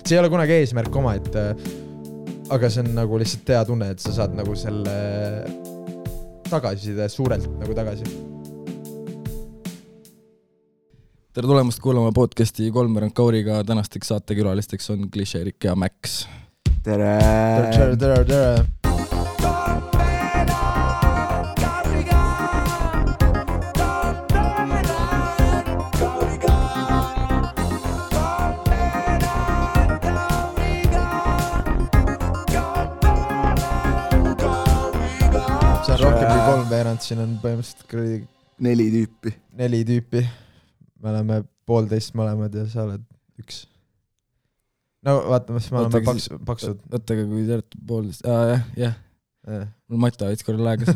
see ei ole kunagi eesmärk oma, et aga see on nagu lihtsalt hea tunne, et sa saad nagu selle tagasiside suurelt nagu tagasi. Tere tulemast kuulama podcasti Kolmveerand Kauriga. Tänasteks saatekülalisteks on Klišeerik ja Max. Tere! Tere! See on rohkem kui kolmveerand, siin on põhimõtteliselt 4 tüüpi. Me oleme 1,5 mõlemad ja sa oled 1. No vaatame, siis me oleme paksud. Võttaga, kui te olete 1,5. Jah. Mul mata võits korral aegas.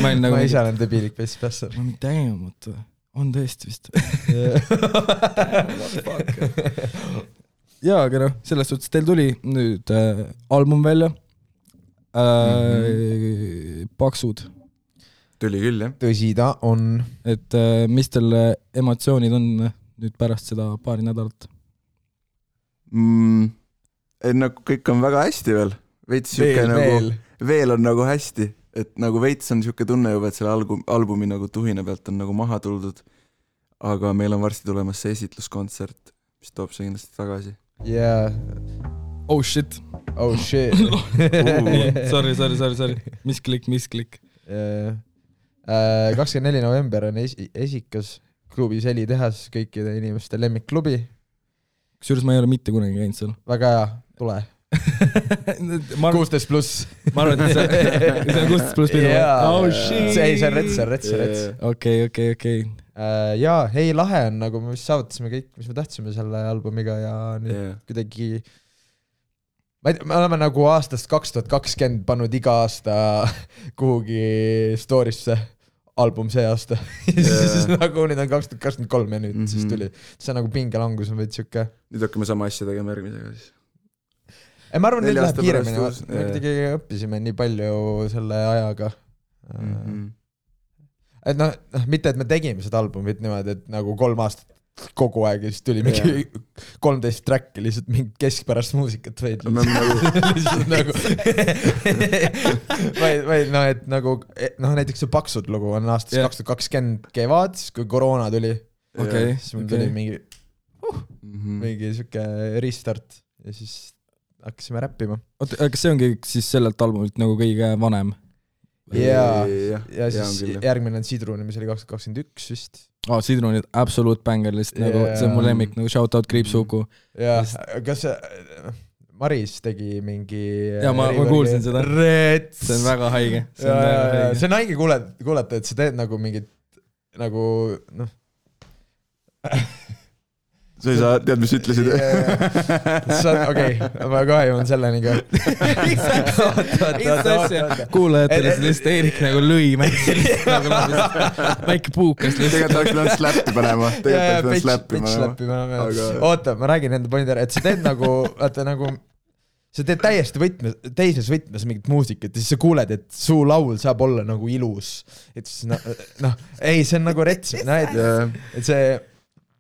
Ma ise olen debiilik peis päässa. Ma mitte täiemata. On tõesti vist. Jaa, aga selles suhtes teil tuli nüüd album välja. Paksud. Tuli küll, jah. Tõsi ta on. Et mis teil emotsioonid on nüüd pärast seda paari nädalat? Nagu kõik on väga hästi veel. Veel on nagu hästi. Et nagu veits on siuke tunne juba, et selle albumi nagu tuhine pealt on nagu maha tuldud. Aga meil on varsti tulemas see esitluskontsert, mis toob see kindlasti tagasi. Yeah. Oh shit. Sorry. Mis klikk. 24. november on esikas klubi Seli tehas, kõikide inimeste lemmikklubi. Kusjuures ma ei ole mitte kunagi käinud seal. Väga hea, tule. 16 pluss. Ma arvan, et see on 16 pluss pidu. Oh shit. See on rets. Okei. Jaa, hei, lahe on, nagu me saavutasime kõik, mis me tahtsime selle albumiga ja nüüd kuidagi me oleme nagu aastast 2020 pannud iga aasta kuhugi storysse album see aasta. Siis nagu nüüd on 2023 ja nüüd siis tuli. See on nagu pingelangus on veits siuke. Nüüd hakkame sama asja tegema järgmisega siis. Ma arvan, nüüd läheb kiiremini. Me kuidagi õppisime nii palju selle ajaga. Et mitte et me tegime seda albumit niimoodi, et nagu 3 aastat kogu aeg ja siis tuli mingi 13 track'i lihtsalt mingi keskpärast muusikat veid lihtsalt nagu et nagu näiteks see Paksud lugu on aastast 2020 kevad, kui koroona tuli siis mul tuli mingi siuke restart ja siis hakkasime räppima. Kas see ongi siis sellelt albumilt nagu kõige vanem? Ja siis järgmine on Sidruni, mis oli 2021 vist. Sidruni absolute banger lihtsalt, nagu see on mu lemmik, nagu shoutout Kriipsuku. Ja, kas Maris tegi mingi... Ja ma kuulsin seda. See on väga haige. See on haige kuulata, et sa teed nagu mingit, nagu, sa ei saa, tead, mis ütlesid? Okei, ma kohe jõuan selleni ka. Kuulajatele see lihtsalt Eerik nagu lõi väike puukas. Tegelikult oleks pidanud slappi panema. Oota, ma räägin enda pointi ära, et sa teed nagu, sa teed täiesti teises võtmes mingit muusikat ja siis sa kuuled, et su laul saab olla nagu ilus. Et siis, ei, see on nagu rets. Et see...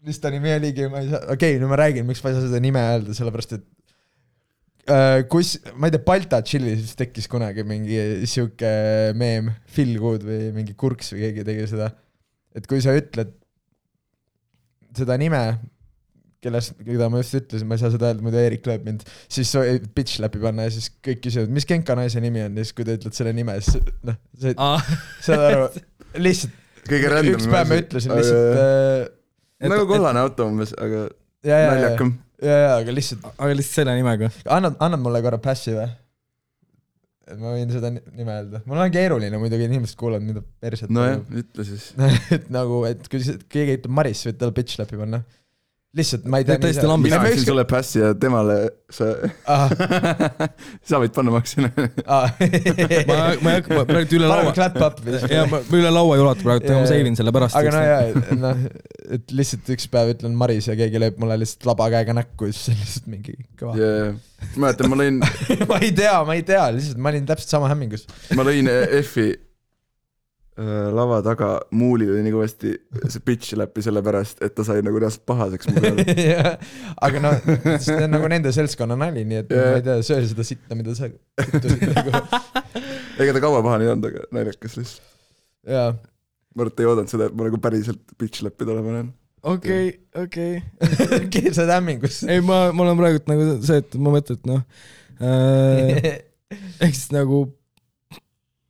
Mis ta nimi oligi, ma ei saa... Okei, nüüd ma räägin, miks ma ei saa seda nime öelda, sellepärast, et ma ei tea, Balta Chillis tekkis kunagi mingi siuke meem, Phil Good või mingi Kurks või keegi tegi seda. Et kui sa ütled seda nime, keda ma just ütlesin, ma ei saa seda öelda, muidu Eerik lööb mind, siis bitch läbi panna ja siis kõik küsivad, mis Genka naise nimi on, ja siis kui ta ütled selle nime, siis saad aru, lihtsalt üks päev ma ütlesin lihtsalt nagu kollane auto umbes, aga naljakam. Aga lihtsalt selle nimega. Annad mulle korra passi või? Ma võin seda nime öelda. Mul on keeruline muidugi, inimesed kuulavad mida perset. No jah, ütle siis. Et nagu, et kui keegi ütleb Maris, võid tal bitch läbi panna. Lihtsalt, ma ei tea... Mina ütlesin sulle passi ja temale sa võid panna maksina. Ma praegu üle laua... üle laua ei ulata praegu, ma seivin selle pärast. Aga et lihtsalt üks päev ütlen Maris ja keegi lööb mulle lihtsalt laba käega näkku ja siis on lihtsalt mingi kõva. Ma mõtlen, ma lõin... ma ei tea, lihtsalt ma olin täpselt sama hämmingus. Ma lõin F-i lava taga muulil oli nii kõvasti see bitch läpi selle pärast, et ta sai nagu reaalselt pahaseks mu peal. Aga no, see on nagu nende seltskonna nali, nii et ma ei tea, söö seda sitta, mida sa kütusid nagu. Ega ta kaua paha nii olnud, aga naljakas lihtsalt. Jaa. Ma arvan, et ei oodanud seda, et ma nagu päriselt bitch läpi tule panen. Okei. Keersad hämmingus. Ei, ma olen praegult nagu see, et ma mõtlen, et noh, ehk siis nagu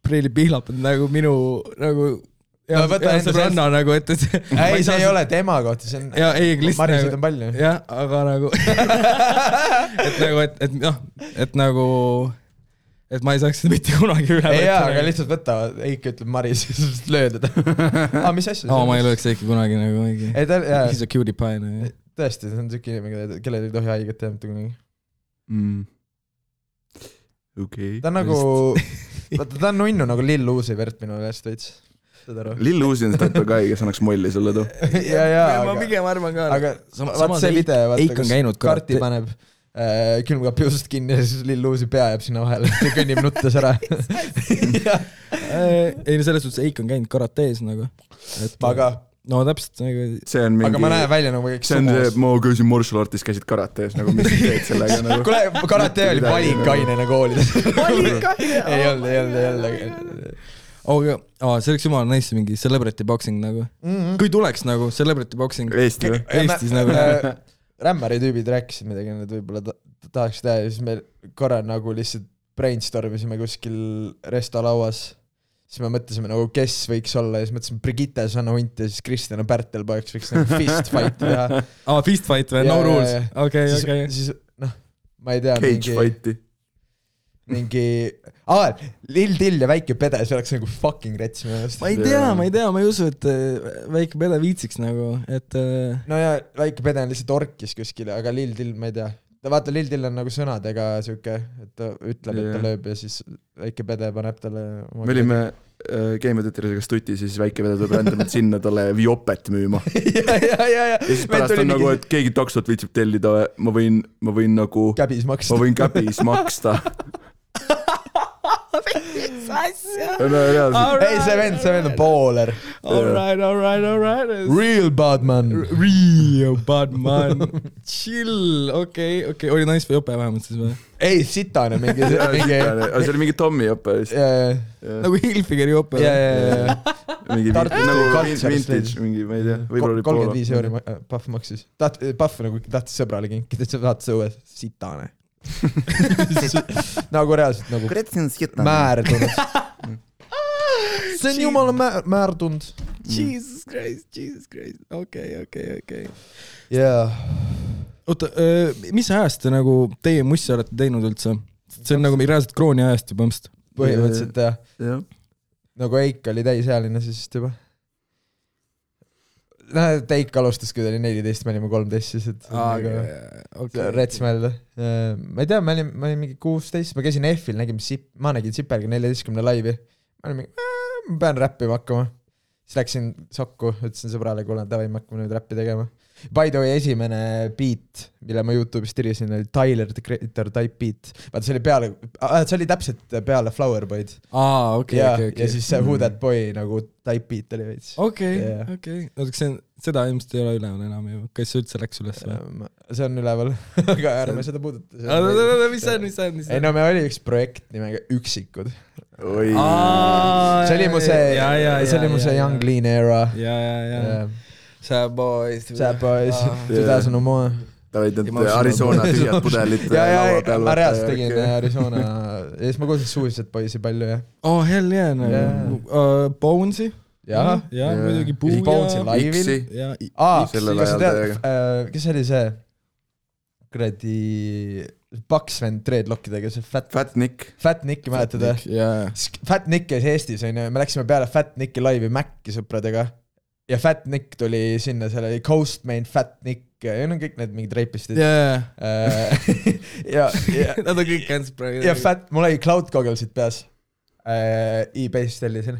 Preili Pihlap on nagu minu nagu ja sõbranna nagu, et ei, see ei ole tema kohta, see on ja, ei, Marisid on palju. Jah, aga nagu et nagu, et noh, et nagu et ma ei saaks seda mitte kunagi üle ei jaa, aga lihtsalt võtta, Eik ütleb Maris, siis löö teda. Mis asja? Ma ei lööks Eiki kunagi nagu mingi. He's a cutie pie. Tõesti, see on siuke inimene, kellel ei tohi haiget teha mitte kunagi. Okay. Ta on nagu, ta on nunnu nagu Lill Uzi vert minu käest veits. Lill Uzi on see täppa kai, kes annaks molli sulle too. Ma pigem arvan ka. Aga vaat see video, kus karti paneb külmkapi usust kinni ja siis Lill Uzi pea jääb sinna vahele ja kõnnib nuttes ära. Ei, selles suhtes Eik on käinud karatees nagu. Aga no täpselt nagu mingi... aga ma näen välja nagu see on see, ma käisin martial artis, käisid karatees nagu mis teed sellega nagu kuule, karate oli valikainena koolides. Valikaine? ei olnud aga see oleks jumala nice mingi celebrity boxing nagu kui tuleks nagu celebrity boxing Eestis nagu rämmari tüübid rääkisid midagi, need võib-olla tahaks teha ja siis me korra nagu lihtsalt brainstormisime kuskil restalauas. Siis me mõtlesime nagu, kes võiks olla ja siis mõtlesime Brigitte Sanna Hunt ja siis Kristjana Pärtelpoeks võiks nagu fist fight teha. Fist fight või? No rules? Okay. Siis noh, ma ei tea. Cage fighti. mingi Lill Till ja Väike Pede, see oleks nagu fucking rets minu arust. Ma ei tea, ma ei usu, et Väike Pede viitsiks nagu, et no ja Väike Pede on lihtsalt orkis kuskile, aga Lill Till ma ei tea. Vaata, Lill Till on nagu sõnadega siuke, et ta ütleb, et ta lööb ja siis Väike Pede paneb talle me olime Game of Thrones'iga stuti, siis Väike Pede tuleb rändamalt sinna talle Viopet müüma. ja siis pärast on nagu, et keegi taksot viitsib tellida, ma võin nagu käbis maksta. Ma võin käbis maksta. Ei, see vend on baller. Alright. Real bad man. Chill, okei. Oli nice või jope vähemalt siis või? Ei, sitane mingi. See oli mingi Tommy jope vist. Nagu Hilfigeri jope. Mingi vintage, mingi, ma ei tea. 35 euri Puff maksis. Puff nagu tahtis sõbrale kinkida, et sa vaatas õues sitane. nagu reaalselt nagu määrdunud. See on jumala määrdunud. Jesus Christ. Okei. Oota, mis ajast te nagu teie mussi olete teinud üldse? See on nagu reaalselt krooni ajast juba mõmst. Põhimõtteliselt jah. Nagu Eik oli täisealine siis juba. Teik alustas, kui ta oli 14, me olime 13 siis, et rets mõelda. Ma ei tea, ma olin mingi 16, ma käisin F-il, ma nägin Sipelga 14 laivi. Ma olin mingi, ma pean räppima hakkama. Siis läksin sokku, ütlesin sõbrale, kuule, davai, me hakkame nüüd räppi tegema. By the way, esimene beat, mille ma YouTube'is tirisin, oli Tyler the Creator type beat. Vaata, see oli täpselt peale Flower Boyd. Okay. Ja siis see Who That Boy nagu type beat oli veits. Okei. Seda ilmselt ei ole üleval enam ju. Kas see üldse läks üles? See on üleval, aga ärme seda puuduta. Mis see on? Ei no, me oli üks projekt nimega Üksikud. See oli mu see Young Lean era. Sad Boys 2000 no more. Ta võid need Arizona tühjad pudelit laua peal. Ma reaalselt tegin Arizona ja siis ma kuulsin Suicide Boysi palju ja. Oh hell yeah. Bones'i? Ja, muidugi Puuja. Bones'i laivil. Kes oli see? Kuradi paks vend dreadlockidega, see Fat Nick. Fat Nicki mäletada? Fat Nick käis Eestis, me läksime peale Fat Nicki laivi Mac'i sõpradega. Ja Fat Nick tuli sinna, seal oli Coastmain, Fat Nick ja on kõik need mingid reipistid. Nad on kõik käinud praegu. Ja mul oli cloud gogglesid peas. E-base tellisin.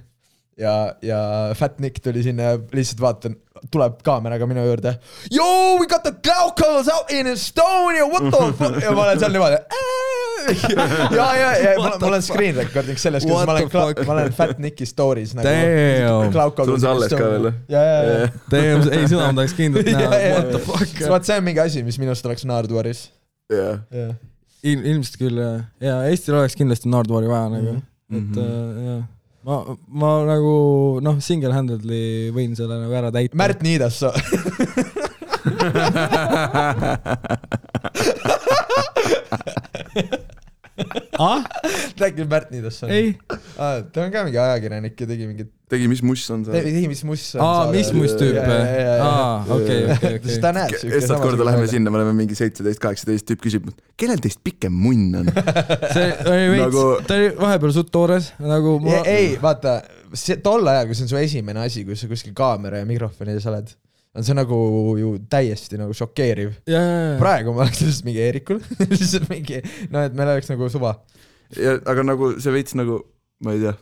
Ja Fat Nick tuli sinna ja lihtsalt vaatan, tuleb kaameraga minu juurde. Yo, we got the cloud goggles out in Estonia, what the fuck? Ja ma olen seal niimoodi. ja mul on screen recording selles, kuidas ma olen Fat Nicki stories nagu sul on see alles ka veel? Ei, seda ma tahaks kindlalt näha. What the fuck? Vaat see on mingi asi, mis minust oleks Naarduaris. Ilmselt küll, ja Eestil oleks kindlasti Naarduari vaja nagu, et jah. Ma nagu, single-handedly võin selle nagu ära täita. Märt Niidasso. Räägid Märt Niidasso? Ei. Ta on ka mingi ajakirjanik ja tegi mis muss on see? Mis muss on. Mis muss tüüp? Okei. Ta näeb Estad korda läheme sinna, me oleme mingi 17-18 tüüp küsib, kellel teist pikem munn on? Ta oli vahepeal suht toores. Ei, vaata, tol ajal, kui see on su esimene asi, kui sa kuskil kaamera ja mikrofoni ees oled, on see nagu ju täiesti nagu šokeeriv. Praegu ma oleks lihtsalt mingi Eerikul, lihtsalt mingi, et meil oleks nagu suva. Aga nagu see veits nagu, ma ei tea,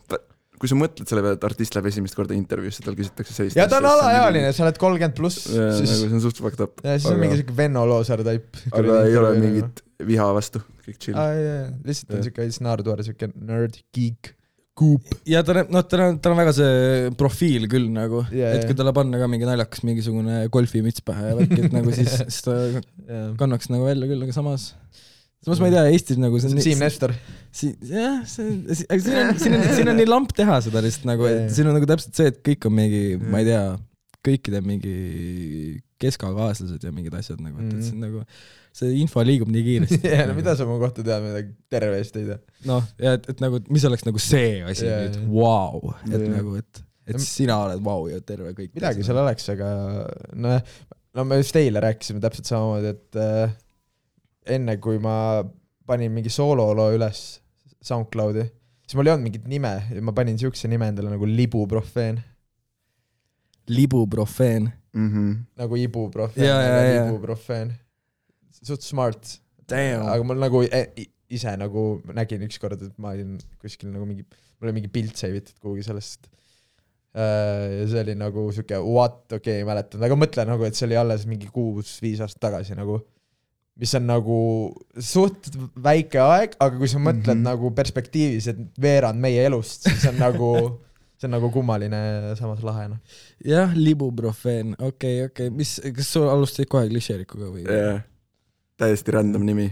kui sa mõtled selle peale, et artist läheb esimest korda intervjuusse, tal küsitakse sellist. Ja ta on alaealine, sa oled 30+. Nagu see on suht fucked up. Ja siis on mingi siuke Venno Loosar type. Aga ei ole mingit viha vastu, kõik chill. Lihtsalt on siuke Naarduar, siuke nerd, geek, kuup. Ja ta on väga see profiil küll nagu, et kui talle panna ka mingi naljakas mingisugune golfimüts pähe ja värk, et nagu siis ta kannaks nagu välja küll, aga samas ma ei tea, Eestis nagu Siim Nestor. Jah, siin on nii lamp teha seda lihtsalt nagu, et siin on nagu täpselt see, et kõik on mingi, ma ei tea, kõikide mingi keskakaaslased ja mingid asjad nagu, et siin nagu see info liigub nii kiiresti. Ja mida sa mu kohta tead, midagi terve eest ei tea? Ja et nagu, mis oleks nagu see asi nüüd, wow, et nagu, et sina oled wow ja terve kõik. Midagi seal oleks, aga me just eile rääkisime täpselt samamoodi, et enne kui ma panin mingi soololoo üles SoundCloudi, siis mul ei olnud mingit nime ja ma panin siukse nime endale nagu Libuprofeen. Libuprofeen? Nagu ibuprofeen, Libuprofeen. Suht smart. Damn. Aga mul nagu ise nagu nägin ükskord, et ma olin kuskil nagu mingi, mul oli mingi pilt seivitud kuhugi sellest. Ja see oli nagu siuke ei mäletan, aga mõtlen nagu, et see oli alles mingi 6-5 aastat tagasi nagu, mis on nagu suht väike aeg, aga kui sa mõtled nagu perspektiivis, et veerand meie elust, siis on nagu kummaline samas lahena. Jah, Libuprofeen, okei. Kas sul alustasid kohe klišeerikuga või? Täiesti random nimi,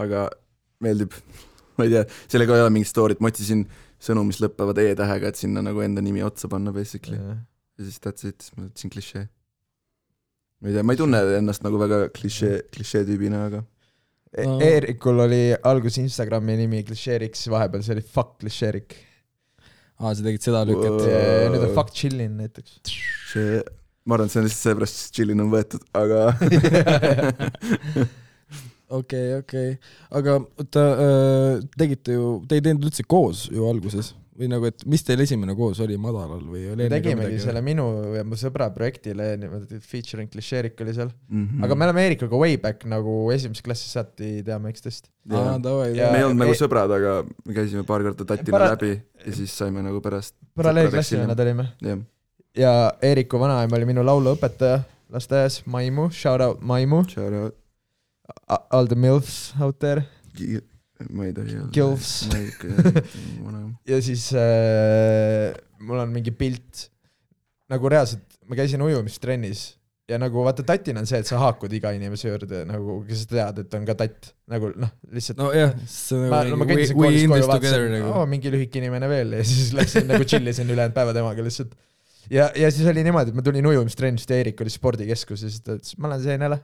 aga meeldib. Ma ei tea, sellega ei ole mingit storyt, ma otsisin sõnu, mis lõppevad e-tähega, et sinna nagu enda nimi otsa panna basically. Ja siis that's it, ma võtsin klišee. Ma ei tea, ma ei tunne ennast nagu väga klišee tüübina, aga Eerikul oli algus Instagrami nimi klišeeriks, vahepeal see oli fuck klišeerik. Sa tegid seda lükket. Nüüd on fuck chillin näiteks. Ma arvan, et see on lihtsalt seepärast, et chillin on võetud, aga Okei. Aga te ei teinud üldse koos ju alguses? Või nagu, et mis teil esimene koos oli madalal või oli? Tegimegi selle minu ja mu sõbra projektile, featuring klišeerik oli seal. Aga me oleme Eerikuga way back nagu esimeses klassis saati teame üksteist. Me ei olnud nagu sõbrad, aga me käisime paar korda tatina läbi ja siis saime nagu pärast paralleelklassi nad olime. Ja Eeriku vanaema oli minu lauluõpetaja lasteaias, Maimu, shout out Maimu. All the milfs out there. Ma ei tohi öelda. Gilfs. Ja siis mul on mingi pilt nagu reaalselt, ma käisin ujumistrennis ja nagu vaata tatina on see, et sa haakud iga inimese juurde nagu, kes tead, et on ka tatt nagu lihtsalt no jah, ma kõndisin koolis koju vaatasin, mingi lühike inimene veel ja siis läksin nagu chillisin ülejäänud päeva temaga lihtsalt ja siis oli niimoodi, et ma tulin ujumistrennist ja Eerik oli spordikeskus ja siis ta ütles, ma olen seenele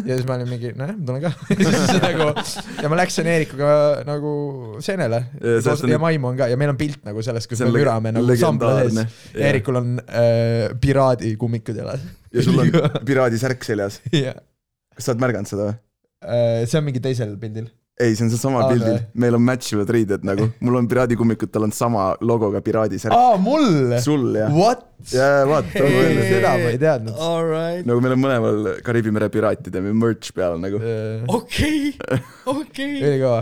ja siis ma olin mingi, ma tulen ka ja ma läksin Eerikuga nagu seenele ja Maimu on ka ja meil on pilt nagu sellest, kus me mürame nagu sambla sees Eerikul on piraadi kummikud jalas ja sul on piraadi särk seljas kas sa oled märganud seda või? See on mingi teisel pildil ei, see on see sama pildil. Meil on matchivad riided nagu. Mul on piraadikummikut, tal on sama logoga piraadi särk. Mul? Sul, jah. What? Jaa, vaat. Seda ma ei teadnud. Nagu meil on mõlemal Kariibi mere piraatide merch peal nagu. Okei. Üli kõva.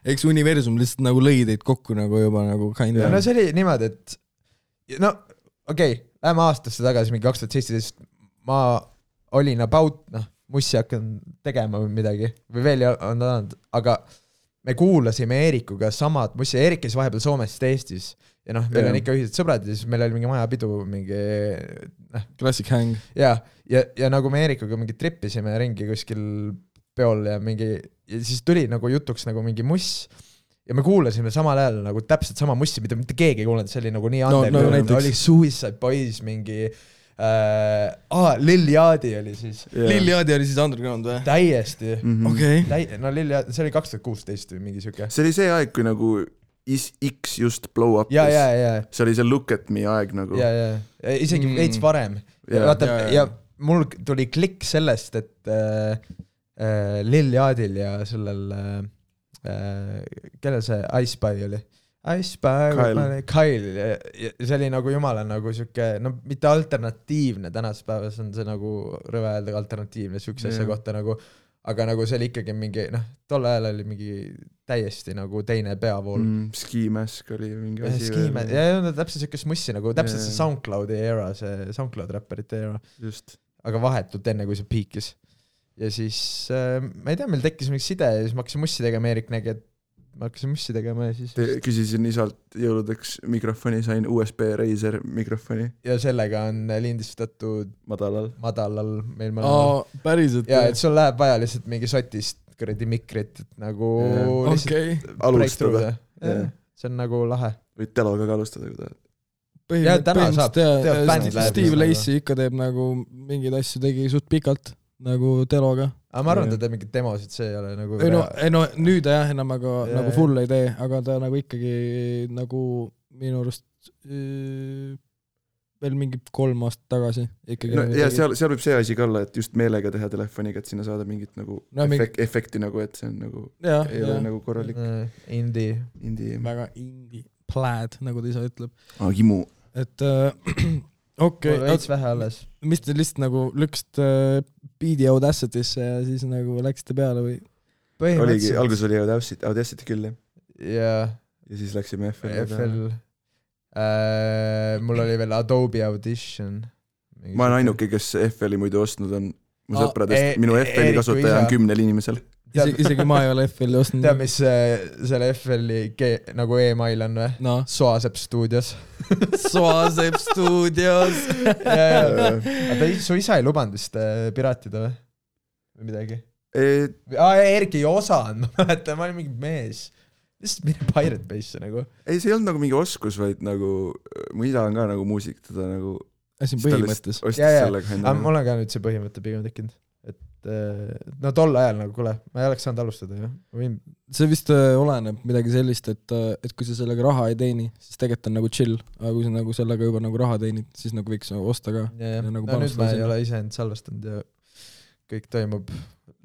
Eks universum lihtsalt nagu lõi teid kokku nagu juba nagu kind of. No see oli niimoodi, et läheme aastasse tagasi, mingi 2017. Ma olin about, mussi hakkan tegema või midagi või veel on olnud, aga me kuulasime Eerikuga samad mussi, Eerik käis vahepeal Soomest Eestis ja noh, meil on ikka ühised sõbrad ja siis meil oli mingi majapidu, mingi Classic hang. Ja nagu me Eerikuga mingi trippisime ringi kuskil peol ja siis tuli nagu jutuks nagu mingi muss ja me kuulasime samal ajal nagu täpselt sama mussi, mida mitte keegi ei kuulanud, see oli nagu nii under, oli Suicide Boys mingi Lil Yachty oli siis. Lil Yachty oli siis underground või? Täiesti. Okei. No Lil Yachty, see oli 2016 või mingi siuke. See oli see aeg, kui nagu X just blow up. Ja. See oli see Look at Me aeg nagu. Ja. Isegi veits varem. Ja mul tuli klikk sellest, et Lil Yachtyl ja sellel kellel see Ice Spy oli? Ice Spy, Kyle ja see oli nagu jumala nagu siuke, no mitte alternatiivne, tänast päevas on see nagu rõve öelda alternatiivne siukse asja kohta nagu, aga nagu see oli ikkagi mingi, noh, tol ajal oli mingi täiesti nagu teine peavool. Ski Mask oli mingi asi. Ja täpselt siukest mussi nagu, täpselt see SoundCloudi era, see SoundCloud räpperite era. Just. Aga vahetult enne, kui see piikis. Ja siis, ma ei tea, meil tekkis mingi side ja siis ma hakkasin mussi tegema, Eerik nägi, et ma hakkasin mussi tegema ja siis... Küsisin isalt jõuludeks mikrofoni, sain USB Razer mikrofoni. Ja sellega on lindistatud madalal meil mõnel. Päriselt. Ja, et sul läheb vaja lihtsalt mingi sotist kõredi mikrit, et nagu lihtsalt alustada. See on nagu lahe. Võid teloga ka alustada, kui tahad. Põhimõtteliselt Steve Lacy ikka teeb nagu mingeid asju tegi suht pikalt nagu teloga. Aga ma arvan, ta teeb mingid demosid, see ei ole nagu... No nüüd jah, enam aga nagu full ei tee, aga ta nagu ikkagi nagu minu arust veel mingi 3 aastat tagasi ikkagi. No, ja seal võib see asi ka olla, et just meelega teha telefoniga, et sinna saada mingit nagu efekti nagu, et see on nagu ei ole nagu korralik. Indie. Väga indie. Plaid, nagu ta ise ütleb. Himu. Et okei. Veits vähe alles. Mis te lihtsalt nagu lükkasite Beat'i Audacity'sse ja siis nagu läksite peale või? Oligi, algus oli Audacity küll, jah. Ja siis läksime FL. Mul oli veel Adobe Audition. Ma olen ainuke, kes FL-i muidu ostnud on mu sõpradest. Minu FL-i kasutaja on 10 inimesel. Isegi ma ei ole FL-i ostnud. Tead, mis selle FL-i nagu e-mail on või? No. Soasep Studios. Soasep Studios. Aga su isa ei lubanud vist piratida või? Või midagi? Erki ei osanud, ma mäletan, ma olin mingi mees. Lihtsalt mine Pirate Base'e nagu. Ei, see ei olnud nagu mingi oskus, vaid nagu mu isa on ka nagu muusik, teda nagu siin põhimõttes. Mul on ka nüüd see põhimõte pigem tekkinud. No tol ajal nagu, kuule, ma ei oleks saanud alustada ju. See vist oleneb midagi sellist, et kui sa sellega raha ei teeni, siis tegelikult on nagu chill, aga kui sa nagu sellega juba nagu raha teenid, siis nagu võiks osta ka. Nagu no nüüd ma ei ole ise end salvestanud ja kõik toimub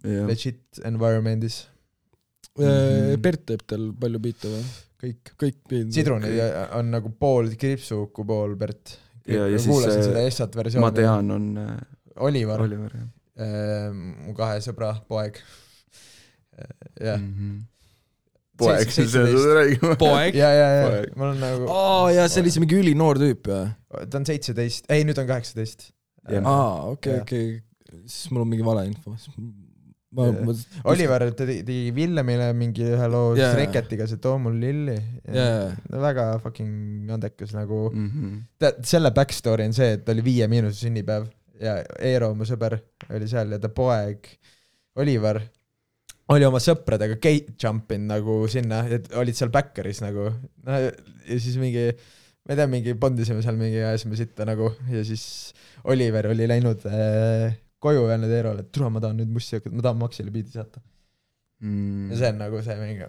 legit environmentis. Bert teeb teil palju biite või? Kõik. Sidruni on nagu pool Kripsuku, pool Bert. Ja kuulasin seda Essat versiooni. Ma tean on Oliver, jah. Mu 2 sõbra poeg. Poeg, see on räägima. Poeg? Ja. Mul on nagu... ja see oli see mingi üli noor tüüp, ja? Ta on 17, ei nüüd on 18. Okei. Siis mul on mingi vale info. Oliver tegi Villemile mingi ühe loo Reketiga, see too mul lilli. Väga fucking andekas nagu. Selle backstory on see, et oli 5- sünnipäev ja Eero, mu sõber, oli seal ja ta poeg Oliver oli oma sõpradega gate jumpin nagu sinna, et olid seal backeris nagu. Ja siis mingi, ma ei tea, mingi bondisime seal mingi ajasime sitta nagu ja siis Oliver oli läinud koju öelnud Eerole, et tule, ma tahan nüüd mussi hakata, ma tahan Maxile biidi saata. Ja see on nagu see mingi...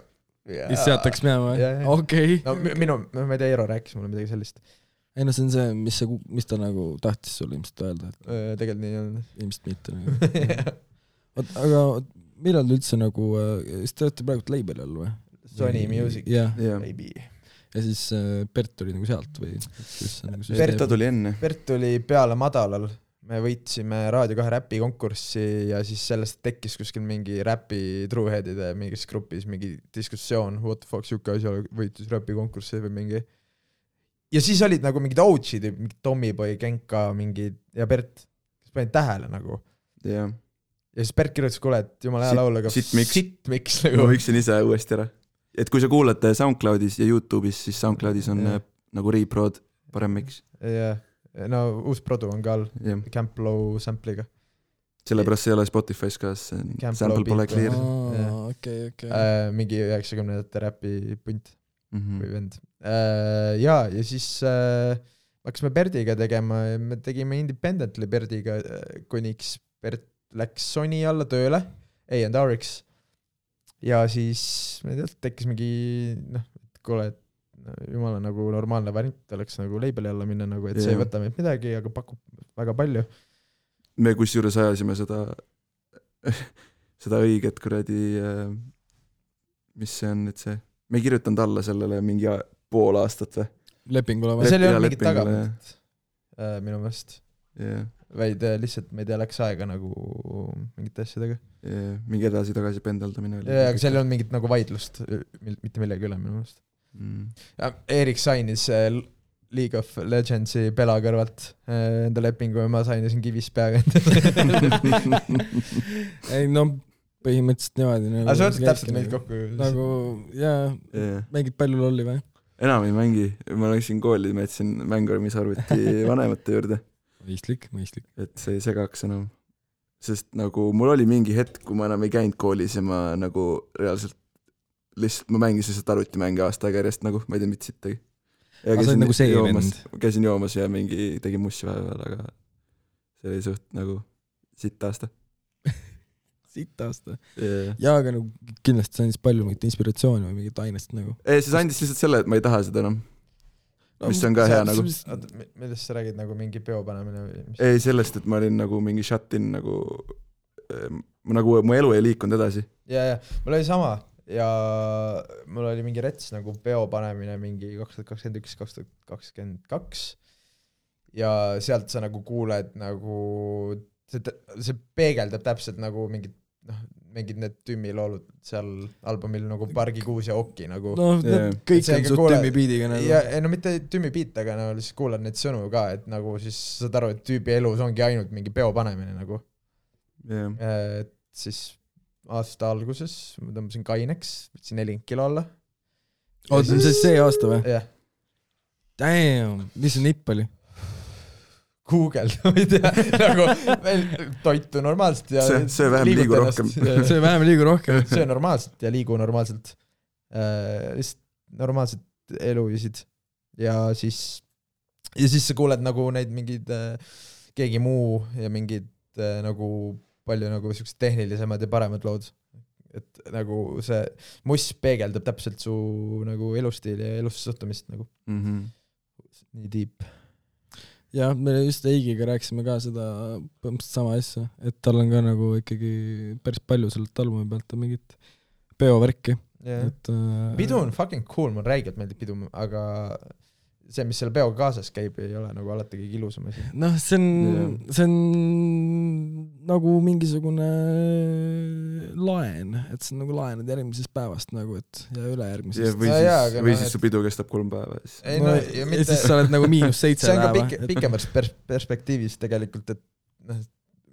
Mis seataks minema? Okei. No ma ei tea, Eero rääkis mulle midagi sellist. Ei no see on see, mis ta nagu tahtis sulle ilmselt öelda. Tegelikult nii on. Ilmselt mitte nagu. Aga millal üldse nagu, siis te olete praegu label all või? Sony Music. Baby. Ja siis Bert tuli nagu sealt või? Bert tuli enne. Bert tuli peale madalal. Me võitsime Raadio 2 räpi konkurssi ja siis sellest tekkis kuskil mingi räpi trueheadide mingis grupis mingi diskussioon, what the fuck, siuke asja võitis räpi konkurssi või mingi. Ja siis olid nagu mingid OG-d, mingi Tommyboy, Genka, mingi ja Bert, kes panid tähele nagu. Yeah. ja siis Bert kirjutas, kuule, et jumala hea laul, aga sitt miks nagu. Ma võiksin ise uuesti ära. Et kui sa kuulad SoundCloudis ja YouTube'is, siis SoundCloudis on nagu reprod parem miks. Jah, no uus produ on ka all Camp Low sample'iga. Sellepärast ei ole Spotify's ka, sample pole clear. Mingi 90-ndate räpi punt või vend. Ja siis hakkasime Berdiga tegema ja me tegime independently Berdiga, kuniks Bert läks Sony alla tööle, A&RX. Ja siis me tekkis mingi, et kuule, et jumala nagu normaalne variant oleks nagu labeli alla minna, nagu, et see ei võta meid midagi, aga pakub väga palju. Me kusjuures ajasime seda õiget kuradi, mis see on nüüd see, me ei kirjutanud alla sellele mingi pool aastat või? Lepingule või? Seal ei olnud mingit tagamist minu meelest. Yeah. Vaid lihtsalt me ei tea, läks aega nagu mingite asjadega. Mingi edasi-tagasi pendeldamine oli. Aga seal ei olnud mingit nagu vaidlust mitte millegi üle minu meelest. Erik sainis League of Legendsi Pela kõrvalt enda lepingu ja ma sainisin kivis peaga ei no põhimõtteliselt niimoodi nagu, aga sa võtad täpselt meid kokku nagu mängid palju lolli või? Enam ei mängi, ma läksin kooli, ma jätsin Mängormis arvuti vanemate juurde. Mõistlik. Et see ei segaks enam. Sest nagu mul oli mingi hetk, kui ma enam ei käinud koolis ja ma nagu reaalselt lihtsalt, ma mängisin lihtsalt arvutimänge aasta aega järjest nagu, ma ei tea mitte sittagi. Käisin joomas ja mingi tegin mussi vahepeal, aga see oli suht nagu sitt aasta. Ja aga nagu kindlasti see andis palju mingit inspiratsiooni või mingit ainest nagu. See andis lihtsalt selle, et ma ei taha seda enam. Mis on ka hea nagu. Millest sa räägid nagu mingi peo panemine või mis? Ei sellest, et ma olin nagu mingi shut-in nagu mu elu ei liikunud edasi. Ja, mul oli sama ja mul oli mingi rets nagu peo panemine mingi 2021-2022 ja sealt sa nagu kuuled nagu see peegeldab täpselt nagu mingid need tümmi loolud seal albumil nagu Pargi kuus ja Okki nagu. Kõik on suht tümmi biidiga nagu. Ja, no mitte tümmi biit, aga no lihtsalt kuulad neid sõnu ka, et nagu siis saad aru, et tüübi elus ongi ainult mingi peo panemine nagu. Et siis aasta alguses ma tõmbasin kaineks, võtsin 40 kilo alla. See aasta või? Jah. Damn, mis see nipp oli? Google, ma ei tea, nagu toitu normaalselt ja see vähem liigu rohkem. See vähem liigu rohkem. See normaalselt ja liigu normaalselt. Lihtsalt normaalselt eluvisid. Ja siis sa kuuled nagu neid mingid keegi muu ja mingid nagu palju nagu sellised tehnilisemad ja paremad lood. Et nagu see muss peegeldab täpselt su nagu elustiili ja elusse suhtumist nagu. Nii deep. Ja me just Eigiga rääkisime ka seda põhimõtteliselt sama asja, et tal on ka nagu ikkagi päris palju sellelt albumi pealt mingit peovärki. Pidu on fucking cool, mul räigelt meeldib pidu, aga see, mis selle peoga kaasas käib, ei ole nagu alati kõige ilusam asi. See on nagu mingisugune laen, et see on nagu laenad järgmisest päevast nagu, et ja ülejärgmisest. Või siis su pidu kestab 3 päeva. Ja siis sa oled nagu -7 päeva. See on ka pikemast perspektiivis tegelikult, et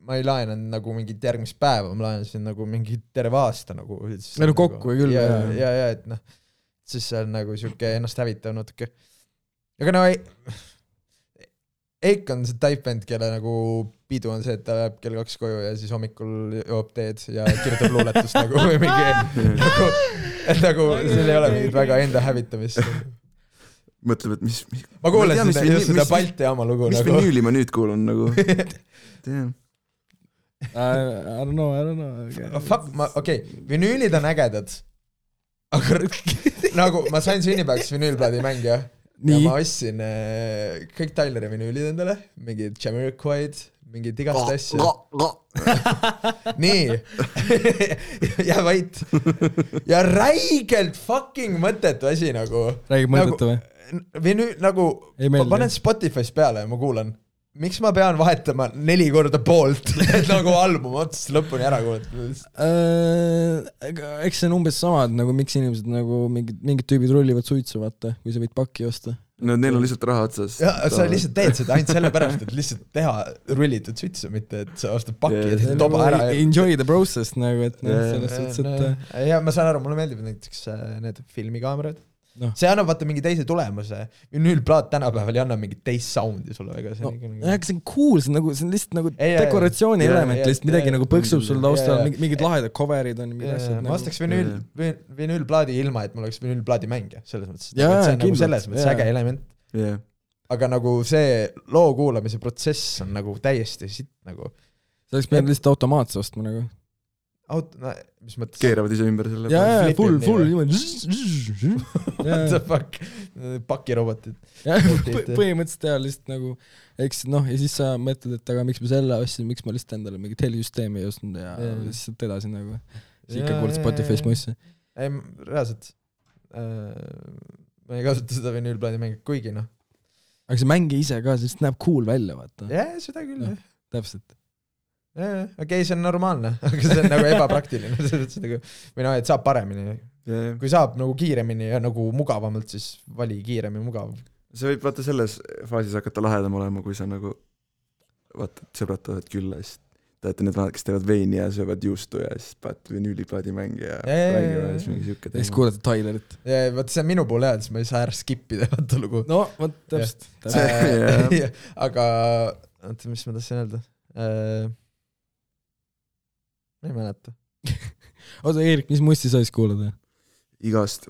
ma ei laenan nagu mingit järgmist päeva, ma laenasin nagu mingi terve aasta nagu. Kokku küll. Ja, et siis see on nagu siuke ennast hävitav natuke. Aga no Eik on see type band, kelle nagu pidu on see, et ta läheb kell 2 koju ja siis hommikul joob teed ja kirjutab luuletust nagu või mingi nagu seal ei ole mingit väga enda hävitamist. Mõtleb, et mis... Ma kuulen seda Balti jaama lugu mis nagu. Mis vinüüli ma nüüd kuulun nagu? I don't know. Okei, vinüülid on ägedad. Aga nagu ma sain sünnipäevaks vinüülplaadi mängija. Ja ma ostsin kõik Tyleri vinüülid endale, mingid Jamiroquaid, mingid igast asju. Nii. Ja vait. Ja räigelt fucking mõttetu asi nagu. Räigelt mõttetu või? Nagu, ma panen Spotify's peale ja ma kuulan. Miks ma pean vahetama 4 korda poolt, et nagu album otsast lõpuni ära kuulata? Eks see on umbes sama, nagu miks inimesed nagu mingid tüübid rullivad suitsu, vaata, kui sa võid pakki osta. No neil on lihtsalt raha otsas. Ja sa lihtsalt teed seda ainult sellepärast, et lihtsalt teha rullitud sütsu, mitte et sa ostad pakki ja teed toba ära. Enjoy the process nagu, et selles suhtes, et... Ja ma saan aru, mulle meeldib näiteks need filmikaamerad. See annab vaata mingi teise tulemuse. Vinüülplaat tänapäeval ei anna mingit teist soundi sulle väga. See on cool, see on lihtsalt nagu dekoratsiooni element, lihtsalt midagi nagu põksub sul taustal, mingid lahedad coverid on. Ma ostaks vinüülplaadi ilma, et mul oleks vinüülplaadi mängija, selles mõttes. See on nagu selles mõttes äge element. Aga nagu see loo kuulamise protsess on nagu täiesti sitt nagu. See oleks pidanud lihtsalt automaatse ostma nagu. Mis mõttes? Keeravad ise ümber selle. Jaa, full What the fuck? Pakirobotid. Põhimõtteliselt teha lihtsalt nagu, eks noh, ja siis sa mõtled, et aga miks ma selle ostsin, miks ma lihtsalt endale mingi helisüsteemi ei ostnud ja lihtsalt edasi nagu. Siis ikka kuuled Spotify's mussi. Ei, reaalselt. Ma ei kasuta seda vinüülplaadi mängi, kuigi noh. Aga see mängi ise ka, sest näeb cool välja, vaata. Jah, seda küll. Täpselt. Okei, see on normaalne, aga see on nagu ebapraktiline. Või noh, et saab paremini. Kui saab nagu kiiremini ja nagu mugavamalt, siis vali kiirem ja mugav. See võib vaata selles faasis hakata lahedam olema, kui sa nagu vaata, et sõbrad tohed külla, siis teate need vanad, kes teevad veini ja söövad juustu ja siis paat vinüüliplaadi mängi ja räägivad siis mingi siuke teema. Siis kuulete Tylerit. Ja vaata, see on minu pool siis ma ei saa ära skippida vaata lugu. No, vaat täpselt. Aga, mis ma tahtsin öelda? Ma ei mäleta. Oota, Eerik, mis mussi sa siis kuulad? Igast.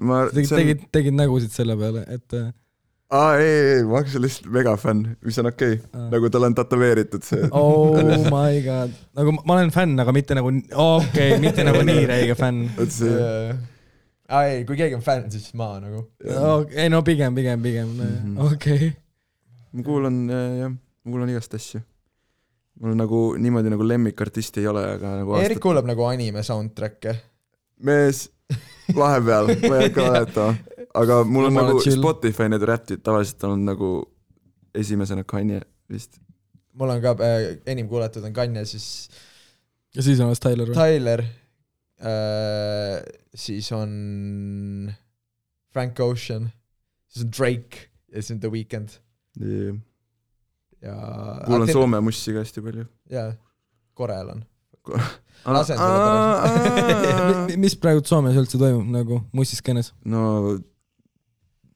Tegid nägusid selle peale, et... ei, ma olen lihtsalt megafänn, mis on okei. Nagu tal on tatoveeritud see. Oh my god. Nagu ma olen fänn, aga mitte nagu... Okei, mitte nagu nii räige fänn. Ei, kui keegi on fänn, siis ma nagu... Ei, no pigem. Okei. Ma kuulan igast asju. Mul nagu niimoodi nagu lemmikartisti ei ole, aga nagu Eerik kuulab nagu anime soundtrack'e. Mees, vahepeal, ma ei hakka valetama. Aga mul on nagu Spotify need räptid tavaliselt on nagu esimesena Kanye vist. Mul on ka enim kuulatud on Kanye, siis... Ja siis on Tyler. Siis on Frank Ocean. Siis on Drake. Ja siis on The Weeknd. Kuulan Soome mussi ka hästi palju. Jaa, Korel on. Mis praegu Soomes üldse toimub nagu mussiskenes? No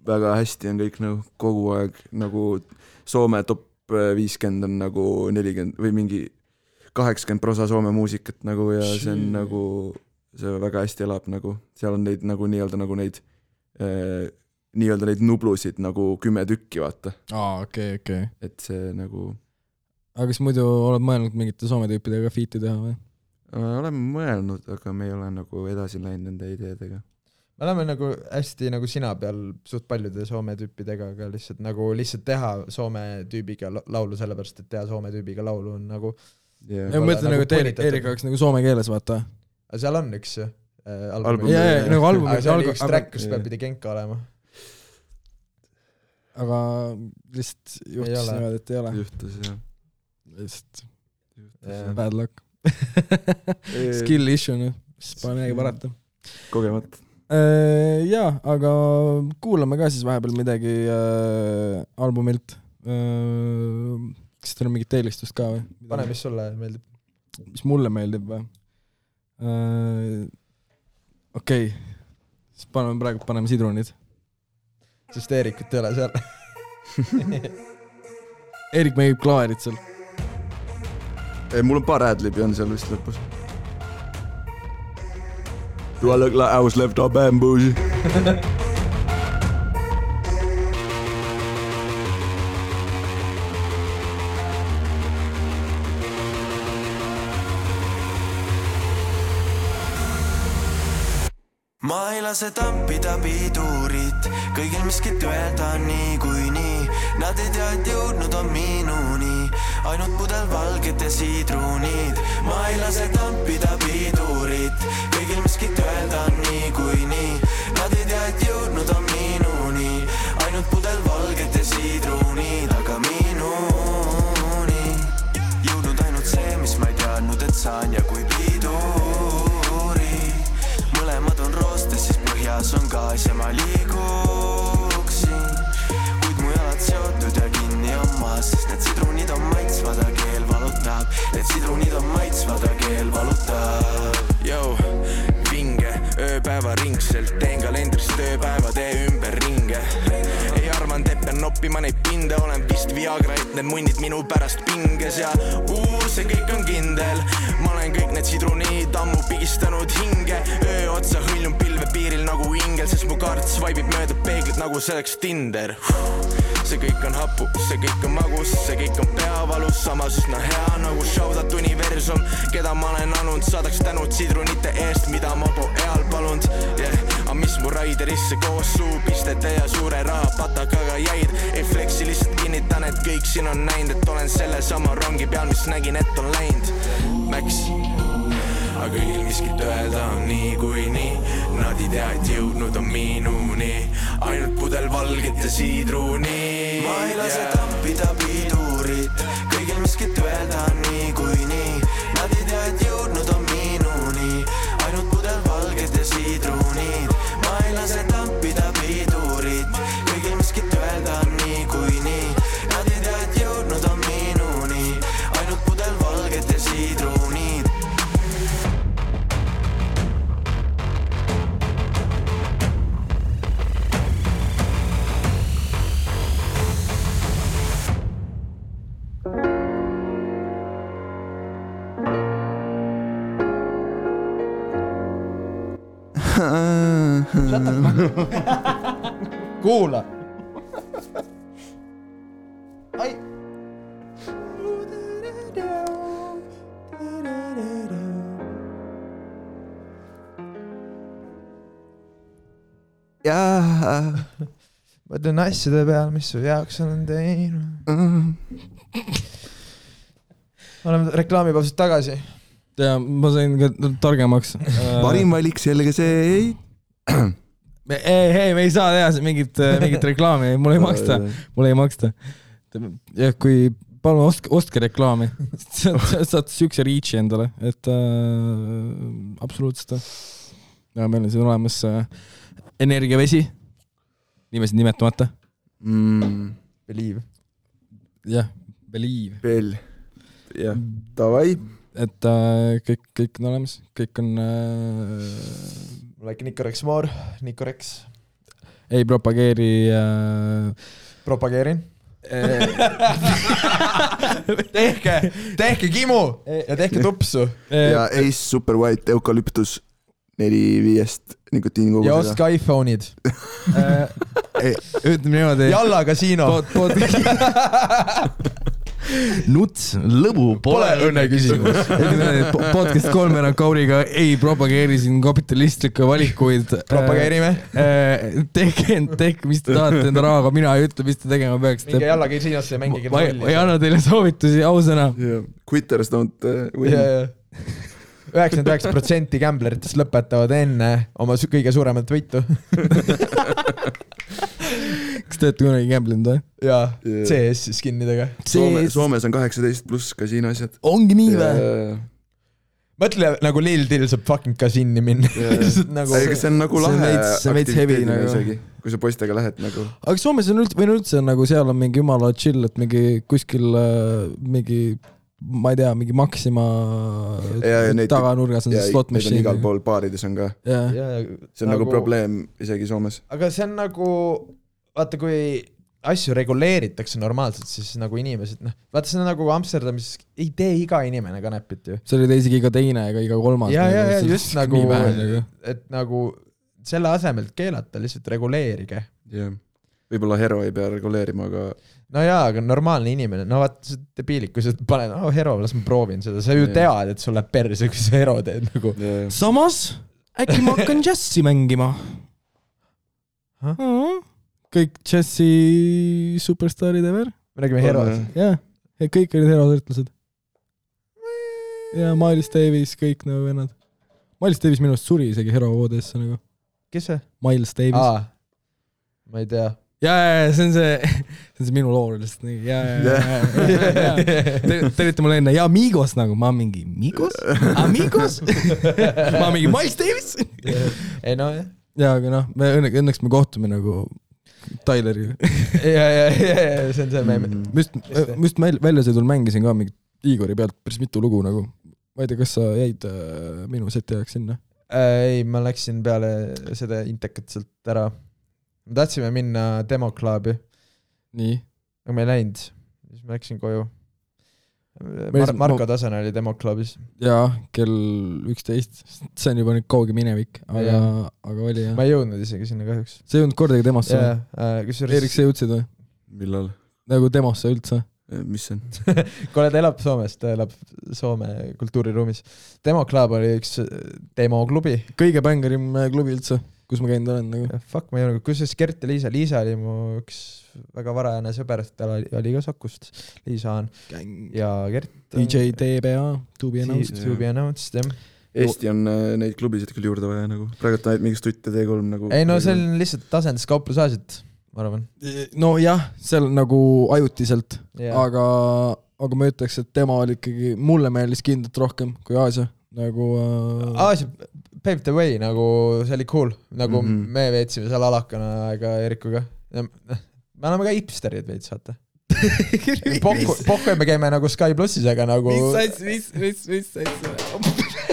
väga hästi on kõik nagu kogu aeg nagu Soome top 50 on nagu 40 või mingi 80% Soome muusikat nagu ja see on nagu see väga hästi elab nagu seal on neid nagu nii-öelda neid nublusid nagu 10 tükki, vaata. Okei. Et see nagu... Aga kas muidu oled mõelnud mingite Soome tüüpidega fiiti teha või? Oleme mõelnud, aga me ei ole nagu edasi läinud nende ideedega. Me oleme nagu hästi nagu sina peal suht paljude Soome tüüpidega, aga lihtsalt teha Soome tüübiga laulu sellepärast, et teha Soome tüübiga laulu on nagu... Ma mõtlen nagu, et Eerik oleks nagu soome keeles, vaata. Aga seal on üks album. Nagu album. Aga see oli üks track, kus peab pidi Genka olema. Aga lihtsalt juhtus niimoodi, et ei ole. Juhtus, jah. Lihtsalt bad luck. Skill issue, mis pole midagi parata. Kogemat. Jaa, aga kuulame ka siis vahepeal midagi albumilt. Kas teil on mingit eelistust ka või? Pane, mis sulle meeldib? Mis mulle meeldib või? Okei. Siis paneme sidrunid. Sest Eerikut ei ole seal. Eerik mängib klaarit seal. Mul on paar adlibi on seal vist lõpus. Do I look like I was left up and bougie? Ma ei lase tampida pidurit, kõigil miskit öelda nii kui nii. Nad ei tea, et jõudnud on minuni, ainult pudel valged ja sidrunid. Ma ei lase tampida pidurit, kõigil miskit öelda nii kui nii. Nad ei tea, et jõudnud on minuni, ainult pudel valged ja sidrunid. Aga minuni jõudnud ainult see, mis ma ei teadnud, et saan ja kui piduri. Mõlemad on roostes, siis põhjas on gaas ja ma liiguksin, kuid mu päevaringselt, teen kalendris tööpäevade ümber ringe. Ei arvan, et pean noppima neid pinde, olen vist Viagra, et need munnid minu pärast pinges ja see kõik on kindel. Ma olen kõik need sidruniid ammu pigistanud hinge, öö otsa hõljun pilve piiril nagu ingel, sest mu kaart svaibib mööda peeglit nagu selleks Tinder. See kõik on hapu, see kõik on magus, see kõik on peavalus, samas üsna hea nagu shoutout universum, keda ma olen anud, saadaks tänud sidrunite eest, mida ma po eal palunud, aga mis mu raiderisse koos suupistete ja suure rahapatakaga jäid, ei flexi lihtsalt kinnitan, et kõik siin on näinud, et olen selle sama rongi peal, mis nägin, et on läinud Max. Aga kõigil miskit öelda on nii kui nii, nad ei tea, et jõudnud on minuni, ainult pudel valget ja siidruni. Ma ei lase tampida pidurit, kõigil miskit öelda on nii kui nii, nad ei tea, et jõudnud on minuni, ainult pudel valget ja siidrunid. Ma ei lase tampida pidurit, kõigil miskit öelda on nii kui nii, nad ei tea, et jõudnud on minuni, ainult pudel valget ja siidrunid. Kuula. Ai. Jaa. Mõtlen asjade peal, mis su jaoks olen teinud. Oleme reklaamipausist tagasi. Ja ma sain ka targemaks. Parim valik selge see ei. Hei, me ei saa teha mingit reklaami, mulle ei maksta. Ja kui palun ostke reklaami, saad sükse reachi endale, et absoluutselt. Ja meil on siin olemas energiavesi, nimesid nimetamata. Believe. Jah, believe. Veel. Jah, davai. Et kõik on olemas, kõik on... Like Nicorex More, Nicorex. Ei propageeri... Propageerin. tehke kimu ja tehke tupsu. Ja Ace Super White Eukalyptus 4-5 nikotiinikogusega. Ja ostke iPhone'id. Ütleme niimoodi... Jalla kasiino. Nuts, lõbu, pole õnne küsimus. Podcast 3 Kauriga ei propageeri siin kapitalistlikke valikuid. Propageerime. Tehke, mis te tahate enda rahaga, mina ei ütle, mis te tegema peaks. Minge jalla kasiinosse ja mängige rolli. Ma ei anna teile soovitusi, ausõna. Quitters don't win. 99% gambleritest lõpetavad enne oma kõige suuremat võitu. Kas te olete kunagi gamblenud või? Jaa, CS skinnidega. Soomes on 18 pluss kasiino asjad. Ongi nii või? Mõtle nagu Lil Dill saab fucking kasiini minna. Ega see on nagu lahe aktiviteedina isegi, kui sa poistega lähed nagu. Aga Soomes on üldse nagu seal on mingi jumala chill, et mingi kuskil mingi ma ei tea, mingi Maxima taganurgas on see slot machine. Igal pool baarides on ka. See on nagu probleem isegi Soomes. Aga see on nagu, vaata kui asju reguleeritakse normaalselt, siis nagu inimesed, vaata see on nagu Amsterdamis ei tee iga inimene kanepit ju. See oli isegi iga teine ega iga kolmas. Ja, just nagu, et nagu selle asemelt keelata lihtsalt reguleerige. Võib-olla hero ei pea reguleerima, aga... No jaa, aga normaalne inimene, no vaata see debiilik, kui sa paned, hero, las ma proovin seda, sa ju tead, et sul läheb perse, kui sa hero teed nagu. Samas, äkki ma hakkan džassi mängima. Kõik džassi superstarid ever. Me räägime herosid. Jah, kõik olid herosõrtlased. Ja Miles Davis, kõik nagu vennad. Miles Davis minust suri isegi hero voodesse nagu. Kes see? Miles Davis. Ma ei tea. Ja, see on see minu loor lihtsalt nii. Te olite mulle enne, ja Migos nagu, ma mingi Migos? Amigos? Ma mingi Miles Davis? Ei no, jah. Ja, aga noh, õnneks me kohtume nagu Tyleriga. Ja, see on see meem. Just väljasõidul mängisin ka mingi Igori pealt päris mitu lugu nagu. Ma ei tea, kas sa jäid minu seti ajaks sinna? Ei, ma läksin peale seda intekat sealt ära. Me tahtsime minna demoklaabi. Nii. Aga me ei läinud. Siis ma läksin koju. Marko Tasane oli demoklaabis. Jaa, kell 11. See on juba nüüd kauge minevik, aga oli jah. Ma ei jõudnud isegi sinna kahjuks. See ei jõudnud kordagi demosse. Erik, sa jõudsid või? Millal? Nagu demosse üldse. Mis see on? Kuule, ta elab Soomes, ta elab Soome kultuuriruumis. Demoklaab oli üks demoklubi. Kõige bängerim klubi üldse, kus ma käinud olen. Nagu. Fuck, ma ei jõudnud. Kus siis Gert ja Liisa? Liisa oli mu üks väga varajane sõber, tal oli ka Sakust. Liisa on. Ja Gert. DJ TBA, To Be Announced. Eesti on neid klubisid küll juurde vaja nagu. Praegu ta mingi Stutt ja T3 nagu. Ei no see on lihtsalt tasendis kauplusaasid, ma arvan. No jah, seal nagu ajutiselt, aga ma ütleks, et tema oli ikkagi, mulle meeldis kindlalt rohkem kui Aasia. Nagu Aasia paved the way, nagu see oli cool. Nagu me veetsime seal alakana aega Erikuga. Me oleme ka hipsterid veits, saate. Pohku me käime nagu Sky Plussis, aga nagu... Mis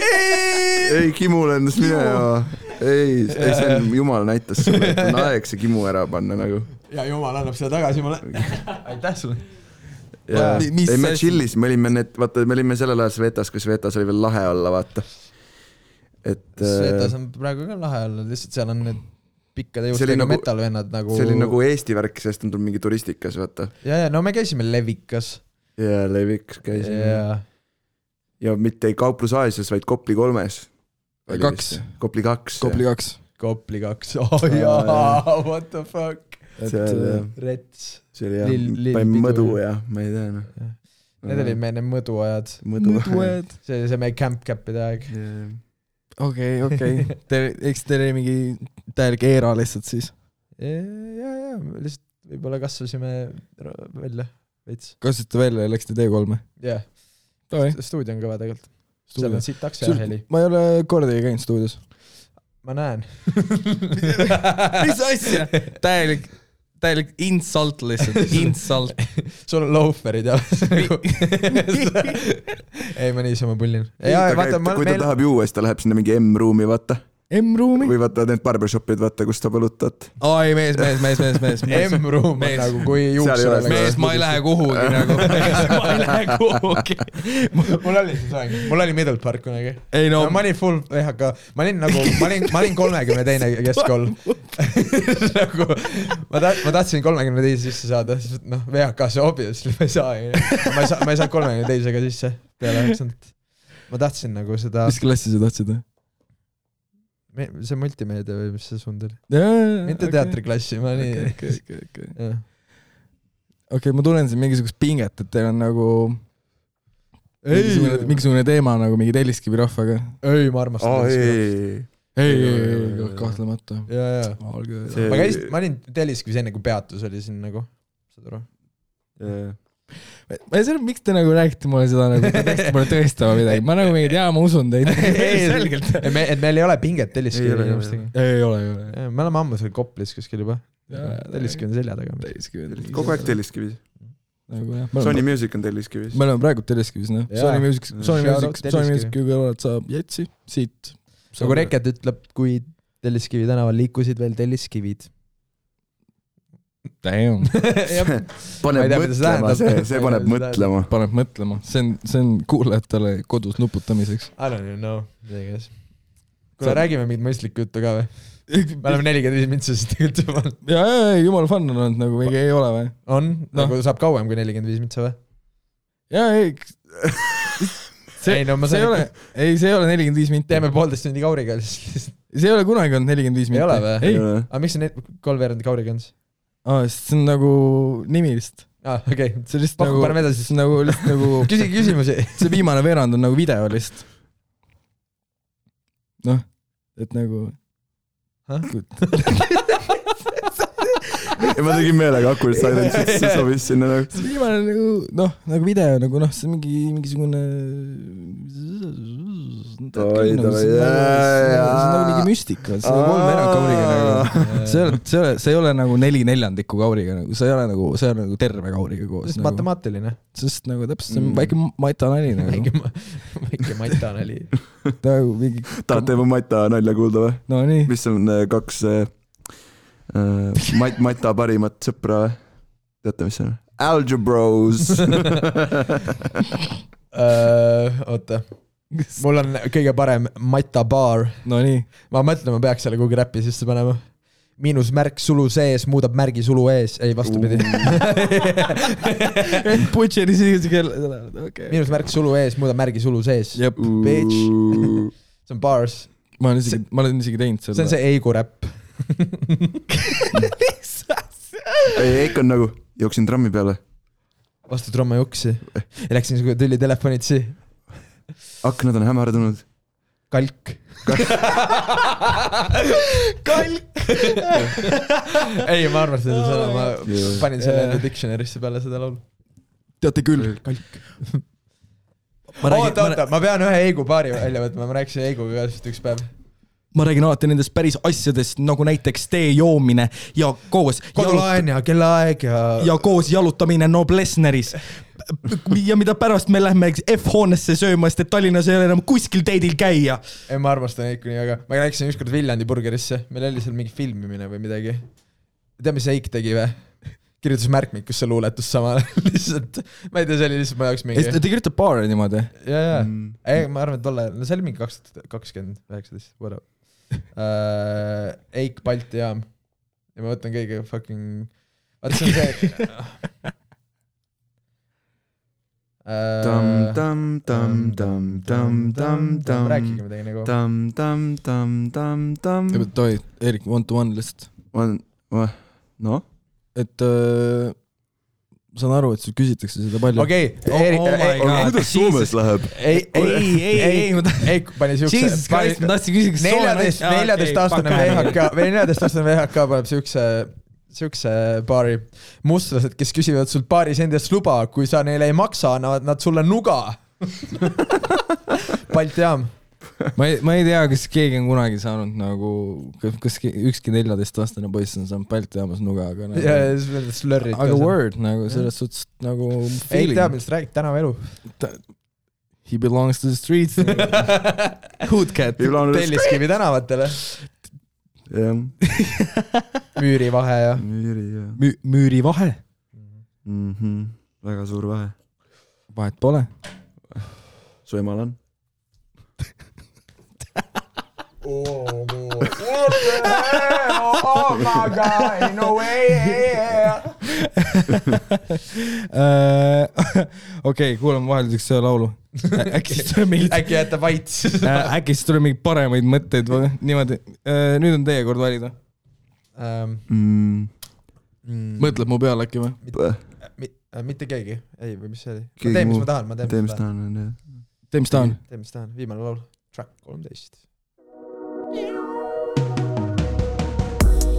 Ei, Kimu lendas minema. Ei, see on Jumal näitas sulle, et on aeg see Kimu ära panna nagu. Ja Jumal annab seda tagasi mulle. Aitäh sulle. Ei, me chillis, me olime sellel ajal Svetas, kui Svetas oli veel lahe olla, vaata. Svetas on praegu ka lahe olla, lihtsalt seal on need pikkade juustega metalvennad nagu... See oli nagu Eesti värk, sest on tulnud mingi turistikas, vaata. Ja, no me käisime Levikas. Ja, Levikas käisime. Ja mitte ei Kauplus Aasias, vaid Kopli 3-s. Kopli 2. Kopli 2. Oh jaa, what the fuck. Rets. See oli jah, mõdu ja ma ei tea. Need olid meie mõduajad. See oli see meie camp-capide aeg. Okei. Eks teil oli mingi täielik eera lihtsalt siis? Ja, lihtsalt võib-olla kasvasime välja veits. Kasvasite välja ja läksite T3? Jah. Stuudio on kõva tegelikult. Seal on siit taksi ja heli. Ma ei ole kordagi käinud stuudios. Ma näen. Mis asja? Täielik insult lihtsalt. Insult. Sul on loaferid ja ei, ma niisama pullin. Kui ta tahab juua, siis ta läheb sinna mingi M-ruumi, vaata. M-ruumi? Või vaata need barbershopid, vaata, kus ta põlutad. Ai, mees. M-ruum on nagu kui juuksur. Mees, ma ei lähe kuhugi nagu. Ma ei lähe kuhugi. Mul oli see soeng. Mul oli Middle Park kunagi. Ei no. Ma olin full VHK. Ma olin 32 keskkool. Nagu, ma tahtsin 32 sisse saada. Noh, VHK see obviously ma ei saa. Ma ei saa 32 sisse peale 9. Ma tahtsin nagu seda... Mis klassi sa tahtsid? See multimeedia või mis see sund oli? Mitte teatriklassi, ma nii... Okei, ma tunnen siin mingisugust pinget, et teil on nagu mingisugune teema nagu mingi Telliskivi rahvaga. Ei, ma armastan Telliskivi. Ei, kahtlemata. Ma olin Telliskivis enne, kui peatus oli siin nagu, saad aru? Ma ei saa, miks te nagu räägite mulle seda, nagu te peaksite mulle tõestama midagi. Ma nagu mingid, ma usun teid. Selgelt. Et meil ei ole pinget Telliskivi inimestega. Ei ole. Me oleme ammu seal Koplis kuskil juba. Telliskivi on selja taga. Kogu aeg Telliskivis. Sony Music on Telliskivis. Me oleme praegu Telliskivis, noh. Sony Music kõrvalt saab Jetsi siit. Nagu Reket ütleb, kui Telliskivi tänaval liikusid veel Telliskivid. Damn. Paneb mõtlema, see paneb mõtlema. Paneb mõtlema. See on kuulajatele kodus nuputamiseks. I don't even know. Kuule, räägime mingit mõistlikku juttu ka või? Me oleme 45 mintsasid tegelikult juba. Jaa, jumal fun on olnud, nagu mingi ei ole või? On? Nagu saab kauem kui 45 mintsa või? Jaa, ei. See ei ole 45 minti. Teeme 1,5 tundi kauriga. See ei ole kunagi olnud 45 minti. Ei ole või? Aga miks see 3 kauriga on? See on nagu nimilist. Okei. See on lihtsalt nagu... Küsigi küsimusi. See viimane veerand on nagu video lihtsalt. Noh, et nagu... Ma tegin meelega Awkward Silence, see sobis sinna nagu... See viimane nagu video, nagu noh, see mingisugune... see on nagu mingi müstika, see on 3 kauriga nagu. See ei ole nagu 4/4 kauriga nagu, see ei ole nagu terve kauriga koos. Nagu, matemaatiline. Sest nagu täpselt see on väike matanali nagu. Väike matanali. Tahad teema matanalja kuulda või? No nii. Mis on 2 Mata parimat sõpra või? Teate, mis see on? Algebros. Oota. Mul on kõige parem Mata bar. No nii. Ma mõtlen, ma peaks selle kuhugi räppi sisse panema. Miinusmärk sulu sees muudab märgi sulu ees. Ei, vastupidi. Butcheri siis kell. Miinusmärk sulu ees muudab märgi sulu sees. Jep. Bitch. See on bars. Ma olen isegi teinud selle. See on see Eigu räpp. Eik on nagu, jooksin trammi peale. Vastu tromma juksi. Ja läksin tülli telefonitsi. Aknad on hämardunud. Kalk. Kalk. Ei, ma arvan seda sõna. Ma panin selle dictionary'sse peale seda laulu. Teate küll. Kalk. Oota, ma pean ühe Eigu paari välja võtma. Ma rääkisin Eiguga ka üks päev. Ma räägin alati nendest päris asjadest, nagu näiteks tee joomine ja koos kodulaen ja kellaaeg ja koos jalutamine Noblessneris. Ja mida pärast me lähme F-hoonesse sööma, sest et Tallinnas ei ole enam kuskil teidil käia. Ei, ma armastan Eiku nii, aga ma läksin ükskord Viljandi burgerisse. Meil oli seal mingi filmimine või midagi. Tea, mis Eik tegi või? Kirjutas märkmikusse luuletus samal. Lihtsalt, ma ei tea, see oli lihtsalt ma jaoks mingi... Ta kirjutab baari niimoodi? Jaa. Ei, ma arvan, et tolle... No see oli mingi 2019, whatever. Eik Balti jaam. Ja ma võtan kõige fucking... Vaata, see on see... Rääkige midagi nagu. Toi, Erik, one to one lihtsalt. No? Et saan aru, et sul küsitakse seda palju. Okei, kuidas Soomes läheb? Ei, Eik pani siukse... Jesus Christ, ma tahtsin küsida 14-aastane VHK paneb siukse baari mustlased, kes küsivad sult baaris endast luba, kui sa neile ei maksa, annavad nad sulle nuga. Balti jaam. Ma ei tea, kas keegi on kunagi saanud nagu, kas ükski 14-aastane poiss on saanud Balti jaamas nuga, aga slurrid. Aga word, nagu selles suhtes nagu feeling. Ei tea, millest räägid tänava elu. He belongs to the streets. Hoodcat. Telliskivi tänavatele. Müürivahe ja Müürivahe? Väga suur vahe. Vahet pole. Su emal on. Oh my God, no way. Okei, kuulame vahelduseks see laulu. Äkki jätta vaits. Äkki siis tuleb mingi paremaid mõtteid või niimoodi. Nüüd on teie kord valida. Mõtled mu peale äkki või? Mitte keegi. Ei, või mis see oli? Ma teen, mis ma tahan. Tee, mis tahan. Viimane laul. Track 13.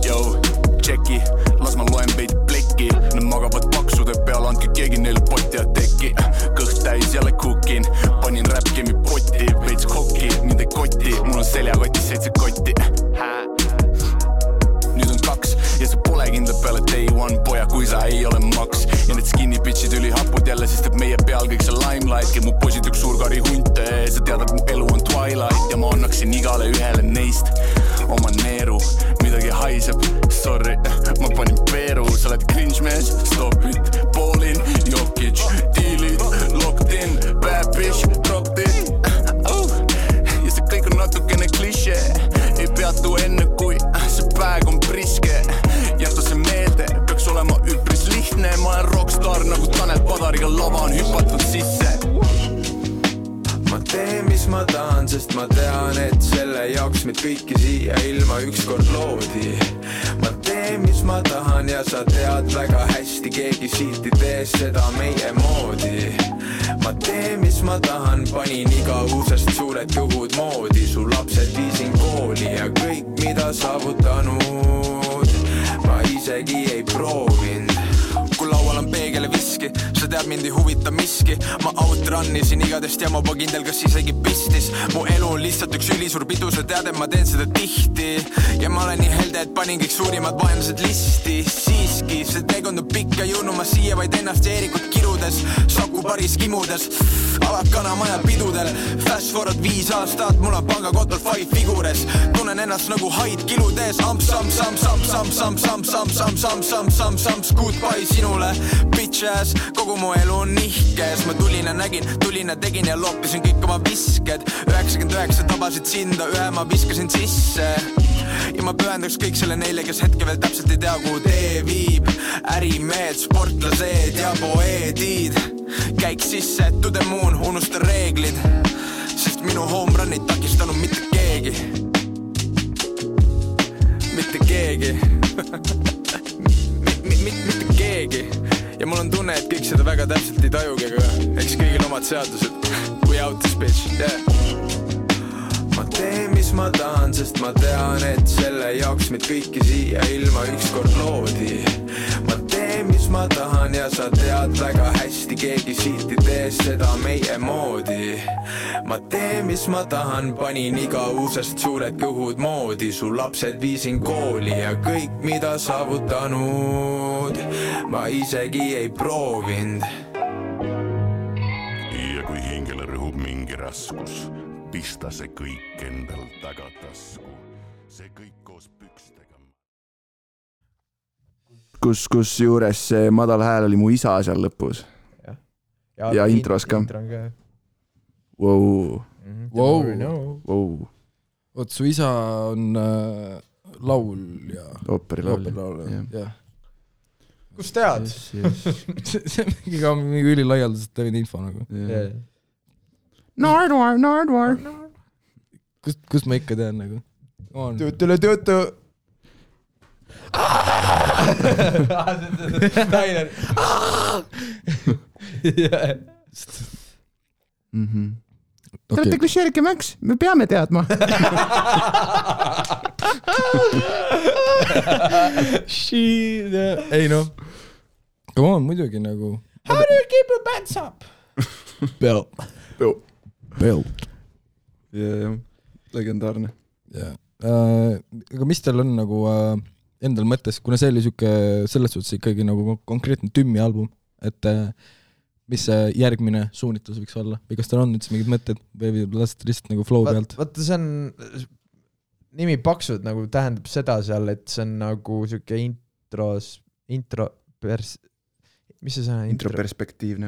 Jou, tšeki, las ma loen veidi plekki. Nad magavad paksude peal, andke keegi neile potti ja teki. Kõht täis jälle kukin, panin räpkemi potti. Veits kokki, mind ei kotti, mul on seljakotti 7 kotti. Nüüd on 2 ja see pole kindla peale day one poja, kui sa ei ole maks. Ja need skinny bitchid üli hapud jälle, sest et meie peal kõik see limelight. Ja mu poisid üks suurkari hunte, sa tead, et mu elu on Twilight. Ja ma annaksin igale ühele neist oma neeru, midagi haiseb, sorry, ma panin peeru. Sa oled cringe mees, stop it, Paulin, Jokic, dealid, locked in, bad bitch, dropped it. Ja see kõik on natukene klišee, ei peatu enne kui see päev on priske. Jäta see meelde, peaks olema üpris lihtne. Ma olen rockstar nagu Tanel Padariga lava on hüpatud sisse. Ma teen, mis ma tahan, sest ma tean, et selle jaoks meid kõiki siia ilma ükskord loodi. Ma teen, mis ma tahan ja sa tead väga hästi, keegi siit ei tee seda meie moodi. Ma teen, mis ma tahan, panin igavusest suured kõhud moodi. Su lapsed viisin kooli ja kõik, mida saavutanud, ma isegi ei proovinud. Kui laual on peegel ja viski, sa tead mind ei huvita miski. Ma out Siit rannisin igadest ja ma juba kindel, kas isegi pistis. Mu elu on lihtsalt üks ülisuur pidu, sa tead, et ma teen seda tihti. Ja ma olen nii helde, et panin kõik suurimad vaenlased listi. Siiski, see teekond on pikk ja jõudnud ma siia vaid ennast ja Eerikut kirudes. Saku paris kimudes, alakana maja pidudel. Fast forward 5 aastat, mul on pangakotol 5 figures. Tunnen ennast nagu haid kiludes. Amps, amps, amps, amps, amps, amps, amps, amps, amps, amps, amps, amps, amps, goodbye sinule, bitch ass. Kogu mu elu on nihkes. Ma tulin ja nägin, tulin ja tegin ja loppisin kõik oma visked. 99 tabasid sinda, ühe ma viskasin sisse. Ja ma pühendaks kõik selle neile, kes hetke veel täpselt ei tea, kuhu tee viib. Ärimehed, sportlased ja poeedid. Käik sisse, to the moon, unusta reeglid. Sest minu home run ei takistanud mitte keegi. Mitte keegi. Mitte keegi. Ja mul on tunne, et kõik seda väga täpselt ei tajugi, aga eks kõigil omad seadused. We out this bitch, yeah. Ma teen, mis ma tahan, sest ma tean, et selle jaoks meid kõiki siia ilma ükskord loodi. Ma teen, mis ma tahan ja sa tead väga hästi, keegi siit ei tee seda meie moodi. Ma teen, mis ma tahan, panin iga uusest suured kõhud moodi. Su lapsed viisin kooli ja kõik, mida saavutanud, ma isegi ei proovinud. Ja kui hingele rõhub mingi raskus, pista see kõik endal tagatasku. See kõik koos pükstega. Kus juures see madal hääl oli mu isa seal lõpus. Ja intros ka. Wow. Wow. Oot, su isa on laulja. Ooperilaulja. Jah. Kus tead? See on mingi ülilaialdaselt teine info nagu. Nardwar. Kust ma ikka tean nagu? Töötu. Nainer. Te olete klisheerike Max, me peame teadma. Ei noh. Come on, muidugi nagu. How do you keep your pants up? Belt. Ja. Legendaarne. Aga mis teil on nagu endal mõttes, kuna see oli selles suhtes ikkagi nagu konkreetne Tümmi album, et mis see järgmine suunitlus võiks olla? Või kas teil on üldse mingid mõtted või lasete lihtsalt nagu flow pealt? Vaata, see on nimi paksud nagu tähendab seda seal, et see on nagu siuke mis see sõna? Introperspektiivne.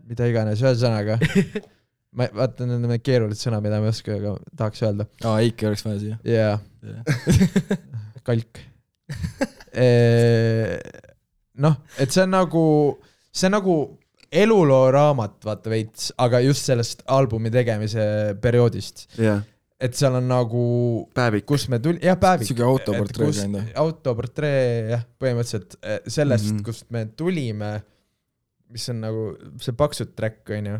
Mida iganes, ühesõnaga. Ma vaatan need keerulised sõna, mida ma ei oska, aga tahaks öelda. Eiki oleks vaja siia. Jaa. Kalk. Noh, et see on nagu eluloo raamat, vaata veits, aga just sellest albumi tegemise perioodist. Jah. Et seal on nagu päevik. Kus me tuli, jah, päevik. Siuke autoportree enda. Autoportree, jah, põhimõtteliselt sellest, kust me tulime, mis on nagu see paksud track, on ju.